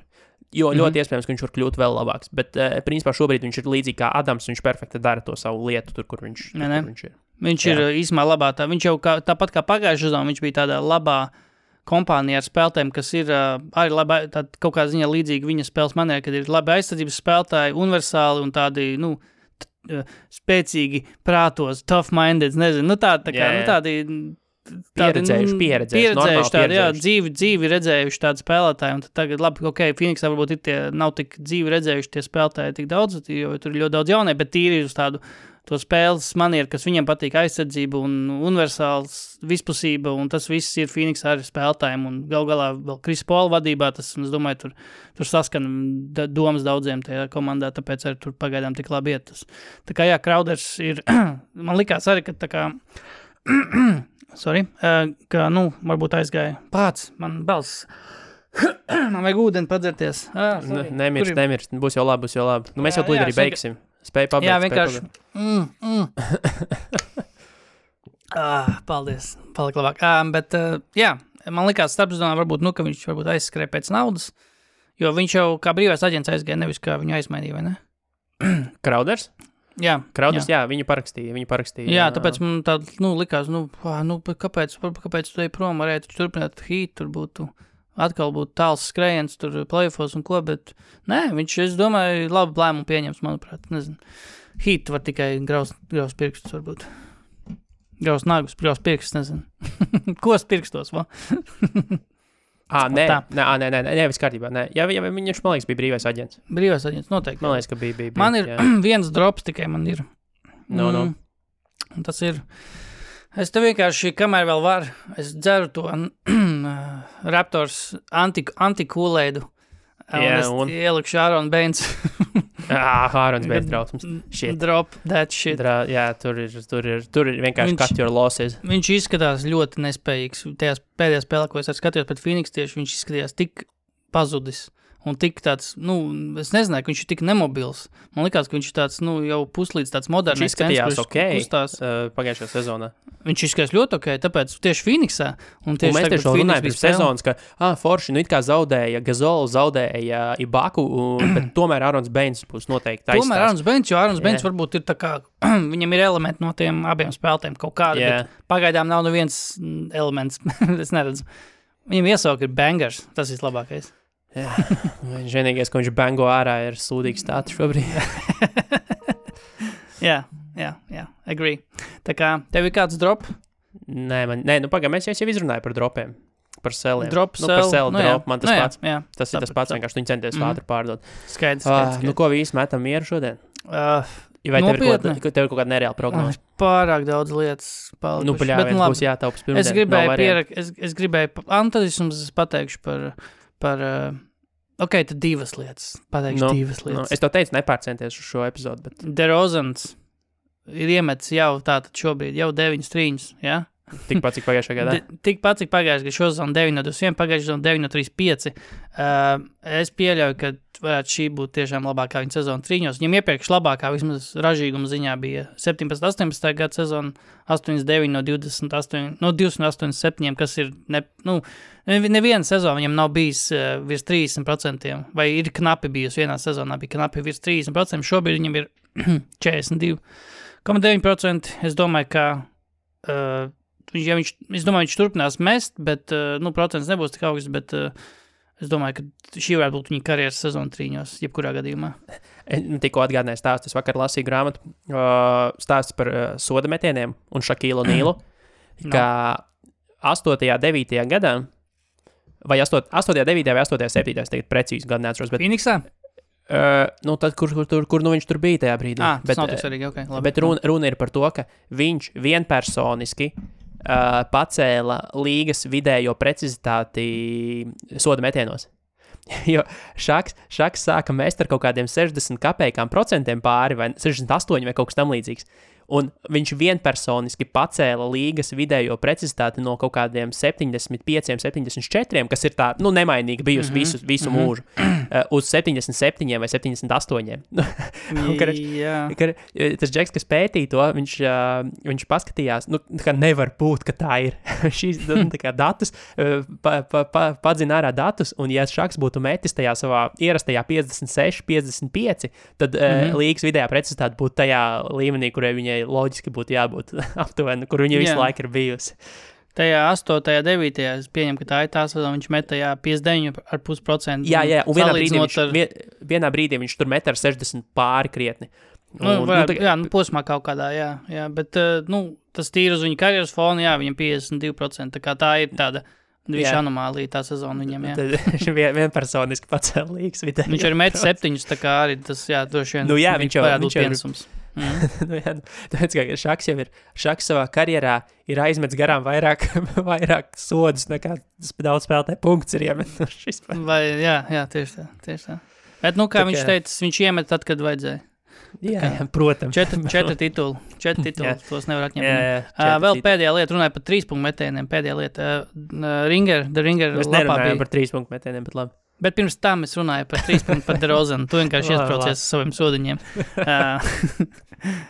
Jo ļoti iespējams, ka viņš var kļūt vēl labāks. Bet, principā, šobrīd viņš ir līdzīgi kā Adams, viņš perfekti dara to savu lietu tur, kur viņš ir. Viņš ir īsumā labā. Viņš jau tāpat kā pagājušajā sezonā, viņš bija tādā labā kompānija ar spēlētājiem, kas ir arī labi, kaut kādā ziņā līdzīgi viņa spēles manierē, kad ir labi aizsardzības spēlētāji, universāli un tādi, spēcīgi prātos, tough-minded, nezinu, tādi pieredzējuši tādi, dzīvi redzējuši tādi spēlētāji, un tad tagad, labi, Phoenixā varbūt ir nav tik dzīvi redzējuši tie spēlētāji tik daudz, jo tur ir ļoti daudz jaunie, bet tīri uz tādu to spēles manieru, kas viņam patīk aizsardzība un universāls vispusība, un tas viss ir Phoenix ar spēlētājiem, un galā vēl Chris Paul vadībā, tas, un es domāju, tur saskan domas daudziem tajā komandā, tāpēc arī tur pagaidām tik labi iet tas. Tā kā, jā, Crowders ir, man likās arī, ka tā kā, ka, varbūt aizgāja pāc, man balss, man vajag ūdeni padzerties. Nemirst, būs jau labi. Mēs jau tūlīt arī beigsim. Spēj pabeigt. Jā, vienkārši. Paldies. Palika labāk. Bet, jā, man likās starpsezonā varbūt, ka viņš varbūt aizskrēja pēc naudas, jo viņš jau kā brīvais aģents aizgāja, nevis kā viņu aizmainīja, vai ne? Crowders? Jā. Crowders, jā, viņu parakstīja. Jā, tāpēc man tā, likās, kāpēc tu ej prom, varētu turpināt Heat, tur būtu atkal būtu tāls skrējiens, tur playoffos un ko, bet nē, viņš, es domāju, labu lēmumu pieņems, manuprāt, nezinu. Heat var tikai graust pirkstus, varbūt. Graust nagus, graust pirkstus, nezinu. Kos pirkstos, va? Nē, viss kārtībā, nē. Jā, viņš, man liekas, bija brīvais aģents. Brīvais aģents, noteikti. Man liekas, ka bija. Man ir viens drops tikai, man ir. Un tas ir... Es te vienkārši, kamēr vēl var, es dzeru to Raptors anti-Kool-Aidu. Un es ielikšu Aaron Baines. Aaron Baines drausmas. Drop that shit. Tur ir vienkārši cut your losses. Viņš izskatās ļoti nespējīgs. Tajās pēdējās spēlē, ko es skatījos pret Phoenix tieši, viņš izskatījās tik pazudis. un tik tāds, es nezināju, ka viņš ir tik nemobils. Man likās, ka viņš ir tāds, jau puslīdz tāds modernais. Viņš izskatījās pagājušajā sezonā. Viņš izskatījās ļoti ok, tāpēc tieši Phoenixā. Un mēs tieši runājam par sezonas, ka forši, it kā zaudēja Gazolu, zaudēja Ibaku, bet tomēr Ārons Beins būs noteikti aizstās. Tomēr Ārons Beins, jo Ārons Beins varbūt ir tā kā, viņam ir elementi no tiem abiem spēlētiem kaut kādi, bet pagaidām nav neviens elements, es neredzu. Viņam iesauka ir bangers, tas ir labākais. Jā, viņš vienīgais, ko viņš bango ārā, ir sūdīgs stāts šobrīd. Jā, agree. Tā kā, tev ir kāds drop? Nē, pagaid, mēs jau izrunāju par dropiem, par seliem. Drop, par selu drop, man tas pats. Jā, tas ir tas pats, vienkārši viņi centies ātri pārdot. Skaidrs. Ko vi īsti metam mieru šodien? Vai nopietni? tev ir kaut kāda nereāla prognoze? Pārāk daudz lietas palikuši. Paļāviens būs jātaupas pirmdien. Es gribēju, tad es jums pateikšu par ok, tad divas lietas. Pateikšu divas lietas. Es to teicu, nepārcenties uz šo epizodu, bet... DeRozans ir iemetis jau tātad šobrīd, jau 9 trīņus, jā? Tikpat, cik pagājušajā gadā? Tikpat, cik pagājušajā gadā, šozonu 9-21, pagājušajā 9-35. Es pieļauju, ka varētu šī būt tiešām labākā viņa sezona trīņos. Viņam iepriekš labākā, vismaz ražīguma ziņā, bija 17-18 gada sezona, 8-9 no 287, kas ir, neviena sezona viņam nav bijis virs 30%, vai ir knapi bijusi vienā sezonā, bija knapi virs 30%, šobrīd viņam ir 42,9%. Es domāju, ka viņš turpinās mest, bet, procents nebūs tik augsts, bet es domāju, ka šī varētu būt viņa karjeras sezona trīņos, jebkurā gadījumā. Tikko atgādināju stāstu, es vakar lasīju grāmatu, stāsts par soda metieniem un Šakīlu Nīlu, ka 8. 9. gadā, vai 8. 9. vai 8. 7. es tagad precīzi gadu neatceros, bet... Phoenixā? Tad, kur viņš tur bija tajā brīdī. Tas nav tik svarīgi, ok. Labi. Bet runa ir par to, ka viņš vienpersoniski pacēla līgas vidējo precizitāti soda metienos. Jo Šaks sāka mest ar kaut kādiem 60 kapējām procentiem pāri, vai 68 vai kaut kas tam līdzīgs. Un viņš vienpersoniski pacēla līgas vidējo precizitāti no kaut kādiem 75, 74, kas ir tā, nemainīgi bijusi visu mūžu, uz 77 vai 78. Tas džeks, kas pētīja to, viņš paskatījās, ka nevar būt, ka tā ir. Šīs datus, padzina ārā datus, un ja Šaks būtu metis tajā savā ierastajā 56, 55, tad līgas vidējā precizitāte būtu tajā līmenī, kurai viņai loģiski būtu jābūt aptuveni, kur viņa visu laiku ir bijusi. Tajā 8. 9. es pieņemu, ka tā ir tā sezona, viņš met tajā 59,5%. Jā, un vienā brīdī viņš tur met ar 60 pāri krietni. Posmā kaut kādā, jā, bet, tas tīri uz viņa karjeras fona, jā, viņam 52%, tā kā tā ir tāda viņš anomālija tā sezona viņam, jā. Viņš vienpersoniski pacēla līgas vidēji. Viņš arī met 7, tā kā arī tas, droši vien, viņš varētu būt piensums. Tāpēc, ka Šaks savā karjerā ir aizmets garām vairāk sodus nekā daudz spēlētāju punkts ir iemetušis. Jā, tieši tā. Bet, kā viņš teica, viņš iemet tad, kad vajadzēja. Jā, protams. 4 tituli, tos nevar atņemt. Vēl pēdējā lieta, runāja par 3 punktu metieniem, pēdējā lieta. The Ringer Mēs nerunājam par 3 punktu metieniem, bet labi. Bet pirms tam es runāju par 3 punktu par DeRozanu. Tu vienkārši iespraucies saviem sodiņiem.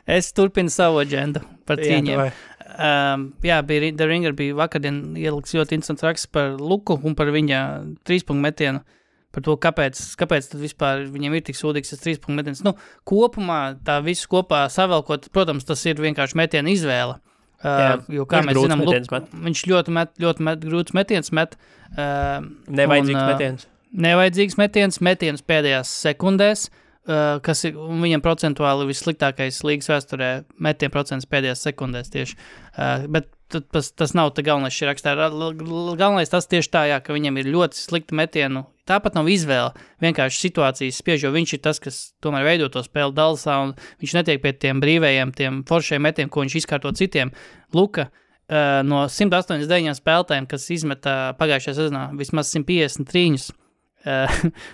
Es turpinu savu agendu par trīņiem. The Ringer bija vakardien ieliks ļoti interesants raksts par Luku un par viņa 3 punktu metienu. Par to, kāpēc tad vispār viņam ir tik sūdīgs tas 3 punktu metiens. Kopumā tā visu kopā savelkot, protams, tas ir vienkārši metiena izvēle. Jo, kā mēs zinām, viņš ļoti grūts metiens met. Nevajadzīgs metiens pēdējās sekundēs, kas ir viņam procentuāli vissliktākais līgas vēsturē metiena procents pēdējās sekundēs tieši. Bet tas nav tā galvenais šī rakstā. Galvenais tas tieši tā, ka viņam ir ļoti slikta metienu. Tāpat nav izvēle, vienkārši situācijas spiež, jo viņš ir tas, kas tomēr veido to spēli Dallasā, un viņš netiek pie tiem brīvējiem, tiem foršiem metiem, ko viņš izkārto citiem. Luka no 189 spēlētājiem, kas izmeta pagājušajā sezonā vismaz 153,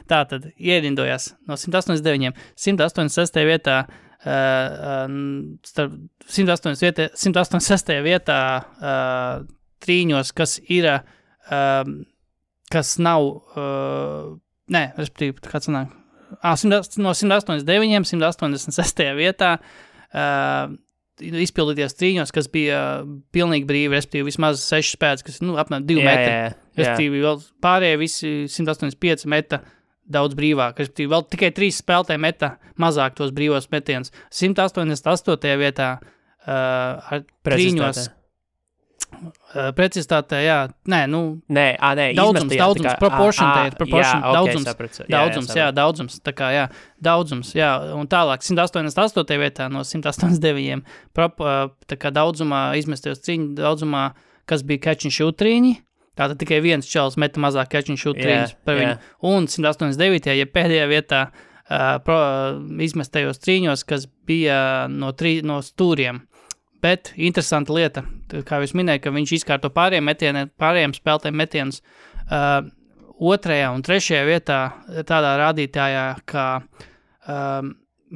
tātad ierindojās no 189, 186. vietā, 186. vietā trīņos, kas ir, kas nav Nē, respektīvi, kāds sanāk. No 189, 186. vietā izpildīties trīņos, kas bija pilnīgi brīvi, respektīvi vismaz 6 spēks, kas, apmēram 2 metri. Respektīvi, vēl pārējie visi 185 meta daudz brīvāk. Respektīvi, vēl tikai 3 spēlētāji meta mazāk tos brīvos metienus. 188. vietā ar trīņos. Precizitātē, jā. Daudzums, daudzums, tā kā, jā, daudzums, jā, un tālāk 188. vietā no 189, tā kā daudzumā izmestajos trīņu, daudzumā, kas bija catch and shoot trīņi, tātad tikai viens čels meta mazāk catch and shoot trīņus par viņu, un 189. ja pēdējā vietā izmestajos trīņos, kas bija no stūriem. Bet interesanta lieta, kā jūs minēja, ka viņš izkārto pārējiem spēlētājiem metienus 2. un 3. vietā tādā rādītājā, kā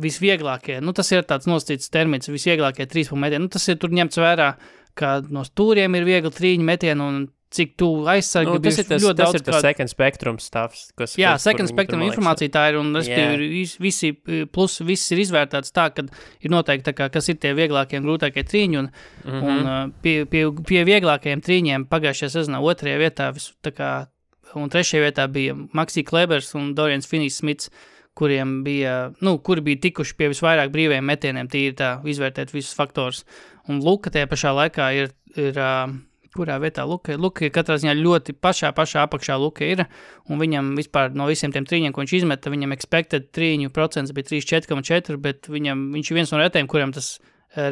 visvieglākie, tas ir tāds nosacīts termins, visvieglākie 3 punktu metieni. Tas ir tur ņemts vērā, ka no stūriem ir viegli trīņu metienu un cik tu aizsargi tas ir ļoti daudz. Tas ir tas second spectrum stuffs. Second spectrum informācija tā ir, un visi ir izvērtāts tā, ka ir noteikti tā kā, kas ir tie vieglākie un grūtākie trīņi, un pie vieglākajiem trīņiem pagājušajā sezonā 2. vietā, un 3. vietā bija Maxi Klebers un Dorians Finney-Smits, kuri bija tikuši pie visvairāk brīvajiem metieniem, tīri tā izvērtēt visus faktors. Un Luka tajā pašā laikā ir kurā vietā Luka ir katrā ziņā ļoti pašā apakšā Luka ir, un viņam vispār no visiem tiem trīņiem, ko viņš izmeta, viņam expected trīņu procents bija 34,4, bet viņš ir viens no retiem, kuram tas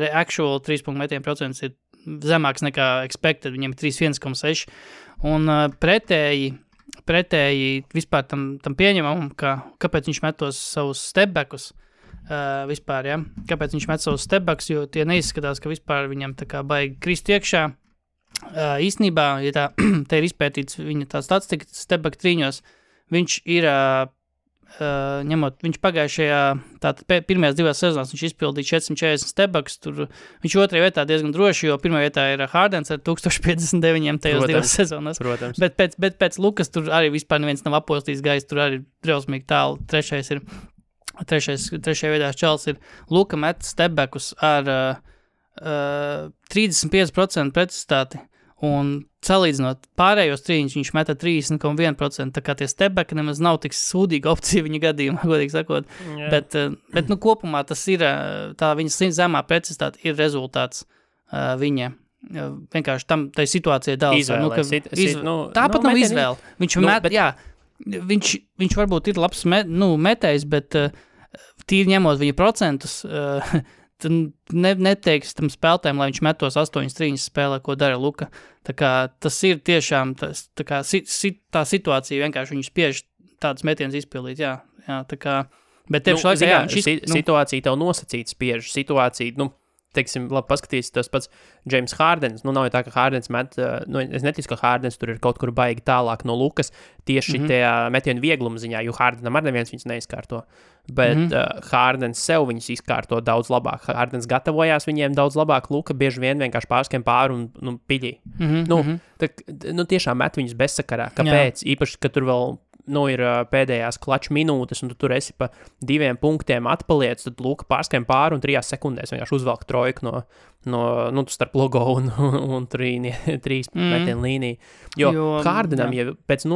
actual 3 punktu metienu procents ir zemāks nekā expected, viņam ir 31,6, un pretēji vispār tam pieņemam, kāpēc viņš met tos savus stepbackus, vispār, ja? Kāpēc viņš met savus stepbacks, jo tie neizskatās, ka vispār viņam tā kā baigi krist iekšā. Īstenībā, ja te ir izpētīts viņa tā statistika stepback trīņos, viņš ir, viņš pagājušajā, tātad pirmajās 2 sezonās viņš izpildīja 440 stepbacks, tur viņš 2. vietā diezgan droši, jo 1. vietā ir Hardens ar 1059 tajos 2 sezonās. Protams. Bet pēc Lukas tur arī vispār neviens nav apostījis gais, tur arī drausmīgi tālu. Trešajā vietā čels ir Luka met stepbackus ar 35% precizitāti, un salīdzinot pārējos trīņus, viņš meta 30,1%, tā kā tie stepbacki nemaz nav tik sūdīga opcija viņa gadījumā, godīgi sakot, bet kopumā tas ir, tā viņa zemā precizitāte ir rezultāts viņa, vienkārši tai situācijai dāls. Tāpat nav izvēle. Viņš varbūt ir labs metējs, bet tīri ņemot viņa procentus, tad neteiks tam spēlētājiem, lai viņš met tos 8 trīņas spēlē, ko dara Luka. Tā kā tas ir tiešām, tā situācija vienkārši viņu spiež tādus metienus izpildīt, jā, tā kā, bet tev situācija tev nosacīt spiež, situācija, teiksim, labi paskatīsi tas pats James Hardens, nav jau tā, ka Hardens met, es neticu, ka Hardens tur ir kaut kur baigi tālāk no Lukas, tieši tajā metienu viegluma ziņā, jo Hardenam ar neviens viņus neizkārto, bet Hardens sev viņus izkārto daudz labāk, Hardens gatavojās viņiem daudz labāk, Luka bieži vien vienkārši pārskiem pāri un piļī. Tiešām met viņus bezsakarā, kāpēc? Īpaši, ka tur vēl ir pēdējās klaču minūtes, un tu tur esi pa 2 punktiem atpaliec, tad Luka pārskiem pāri un 3 sekundēs vienkārši uzvelk trojku no starp logo un 3 metienu līniju. Jo Hardenam, ja pēc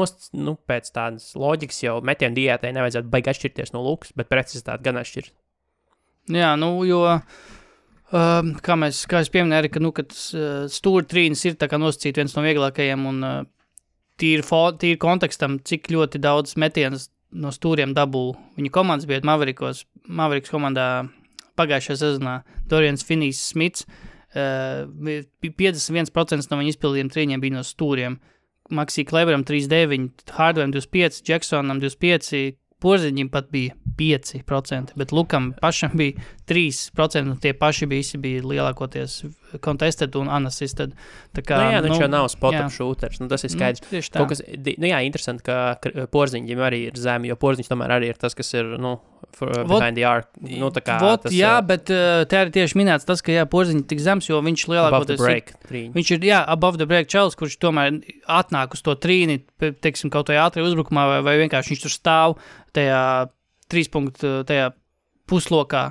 tādas loģikas jau metienu diētai nevajadzētu baigi atšķirties no Lukas, bet precizitāti gan atšķirt. Jā, jo kā es pieminēju, ka stūra trīnis ir tā kā nosacīt viens no vieglākajiem, un tīri kontekstam, cik ļoti daudz metienas no stūriem dabū viņa komandas bija Mavericks komandā pagājušajā sezonā. Dorians Finney-Smits 51% no viņa izpildījiem trīņiem bija no stūriem. Maxi Kleberam 39, Hardwaream 25, Jacksonam 25, Porziņam pat bija 5%, bet Lukam pašam bija 3%, un tie paši bija lielākoties contested un unassisted. Tā kā, viņš jau nav spot-up shooters, tas ir skaidrs. Tieši tā. Interesanti, ka Porziņģim arī ir zemi, jo Porziņš tomēr arī ir tas, kas ir, behind the arc. Tā kā tas... bet te arī tieši minēts tas, ka Porziņš tik zems, jo viņš lielākoties... Above the break. Viņš ir, above the break čels, kurš tomēr atnāk uz to trīni, teiksim, kaut vai ātri uzbrukumā, vai vienkārši viņš tur stāv tajā 3 punktu, tajā puslokā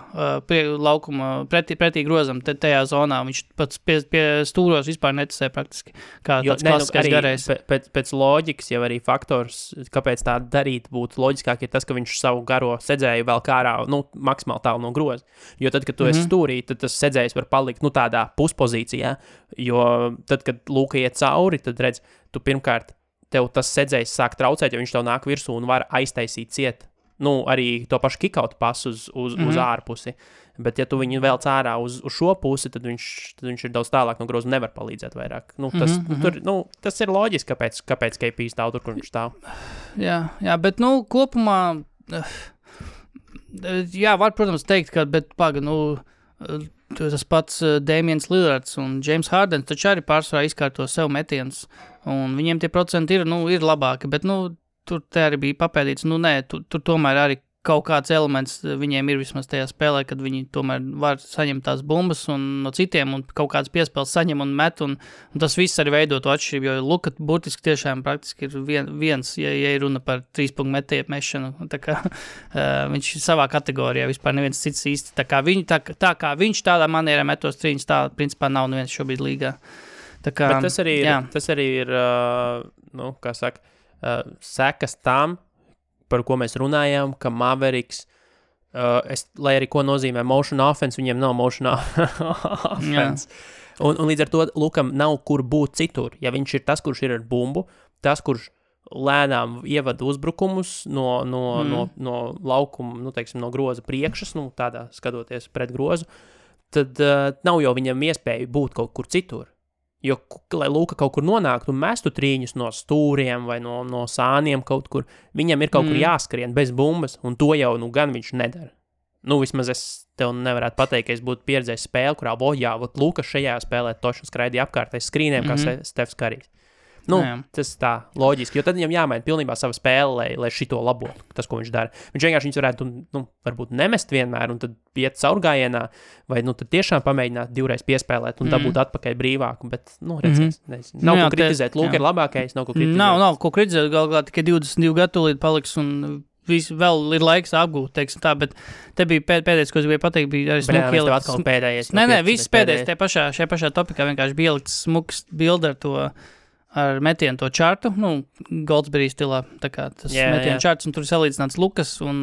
laukuma pretī grozam, tajā zonā. Viņš pats pie stūros vispār neticē praktiski, kā tāds klasiskais garējs. Pēc loģikas jau arī faktors, kāpēc tā darīt būtu loģiskāk, ir tas, ka viņš savu garo sedzēju vēl kārā, maksimāli tālu no groza. Jo tad, kad tu esi stūrī, tad tas sedzējs var palikt, tādā puspozīcijā, jo tad, kad lūka iet cauri, tad redz, tu pirmkārt, tev tas sedzējs sāk traucēt, jo viņš tev nāk virsū un var aiztaisīt ciet. Arī to pašu kick-out pasu uz ārpusi. Bet, ja tu viņu vēl cārā uz šo pusi, tad viņš ir daudz tālāk no groza un nevar palīdzēt vairāk. Tas ir loģiski, kāpēc KP stāv tur, kur viņš stāv. Jā, bet, kopumā, var, protams, teikt, ka, bet, tas pats Damians Lillards un James Harden taču arī pārsvarā izkārto sev metienus, un viņiem tie procenti ir labāki, bet, tur te arī bija papēdīts, tur tomēr arī kaut kāds elements viņiem ir vismaz tajā spēlē, kad viņi tomēr var saņemt tās bumbas un no citiem un kaut kāds piespēles saņem un met, un tas viss arī veido to atšķirību, jo Luka burtiski tiešām praktiski ir viens, ja ir runa par 3 punktu metēju mešanu, tā kā viņš savā kategorijā vispār neviens cits īsti, tā kā viņš tādā manierā metos trīņus, tā principā nav neviens šobrīd līgā. Tā kā, bet tas arī ir kā saka, sekas tam, par ko mēs runājām, ka Mavericks, lai arī ko nozīmē motion offense, viņiem nav motion offense. Un līdz ar to Lukam nav kur būt citur. Ja viņš ir tas, kurš ir ar bumbu, tas, kurš lēnām ievada uzbrukumus no laukuma, teiksim, no groza priekšas, tādā skatoties pret grozu, tad nav jau viņam iespēja būt kaut kur citur. Jo, lai Luka kaut kur nonāktu un mestu trīņus no stūriem vai no sāniem kaut kur, viņam ir kaut kur jāskrien bez bumbas, un to jau gan viņš nedara. Vismaz es tev nevarētu pateikt, ka es būtu pieredzējis spēli, kurā Luka šajā spēlē toši skraidīja apkārtais skrīniem, kā Stefs Karijs. Tas tā loģiski, jo tad viņam jāmaina pilnībā sava spēle, lai šito labotu, tas, ko viņš dara. Viņš vienkārši varētu, varbūt nemest vienmēr un tad iet caurgājienā, vai tad tiešām pamēģināt divreiz piespēlēt un dabūt atpakaļ brīvāku, bet, redzēs. Nav ko kritizēt, Luka ir labākais, nav ko kritizēt. Nav ko kritizēt, galvā tikai 22 gadu līdz paliks un vēl ir laiks apgūt, teiksim tā, bet te bija pēdējais, ko es gribēju pateikt, bija arī smuki ielikt. Atkal pēdējais. Viss pēdējais, šajā pašā topikā vienkārši bija ielikt smuks bildi ar metienu to čārtu, Goldsberry stilā, tā kā tas metienu čārts, un tur salīdzināts Lukas un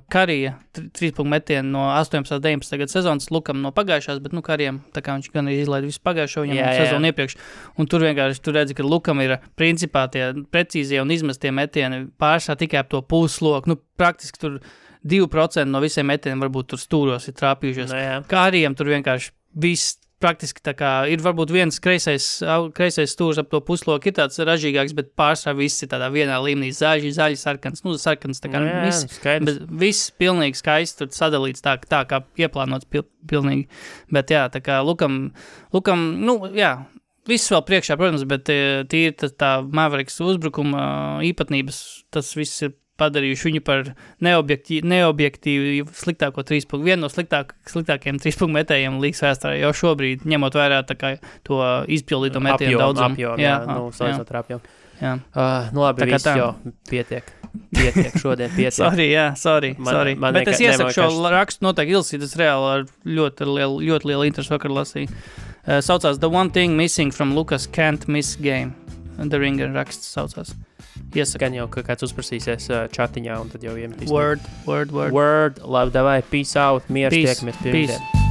Karija 3 punktu metienu no 18-19 gadu sezonas, Lukam no pagājušās, bet, Karijam, tā kā viņš gan arī izlaida visu pagājušo viņam sezonu iepriekš, un tur vienkārši, tu redzi, ka Lukam ir principā tie precīzie un izmestie metieni pārsā tikai ap to pusloku, praktiski tur 2% no visiem metieniem varbūt tur stūros ir trāpījušies. Karijam tur vienkārši viss praktiski tā kā ir varbūt viens kreisais stūrs ap to pusloku, ir tāds ražīgāks, bet pārsvarā viss ir tādā vienā līmenī, zaļi, sarkans, sarkans, tā kā bet viss pilnīgi skaisti tur sadalīts tā kā ieplānots pilnīgi, bet tā kā Lukam, viss vēl priekšā, protams, bet tīri tā Mavericks uzbrukuma īpatnības, tas viss ir padarījuši viņu par neobjektīvi sliktāko 3 punktu. Vienu no sliktākajiem 3 punktu metējiem līgas vēsturē jau šobrīd, ņemot vērā tā kā to izpildīto metienu daudzumu. Salīdzinot ar apjomu. Labi, viss jau pietiek šodien. Sorry. Bet es iesaku šo rakstu noteikti ilsīt, es reāli ar ļoti lielu interesi vakar lasīju. Saucās The One Thing Missing from Lucas Can't Miss Game. The Ringer raksts saucās. Gan jau, ka kāds uzprasīsies chatiņā un tad jau iemetīs. Word. Labi, davai, peace out, mieru, tiekamies pirmdien.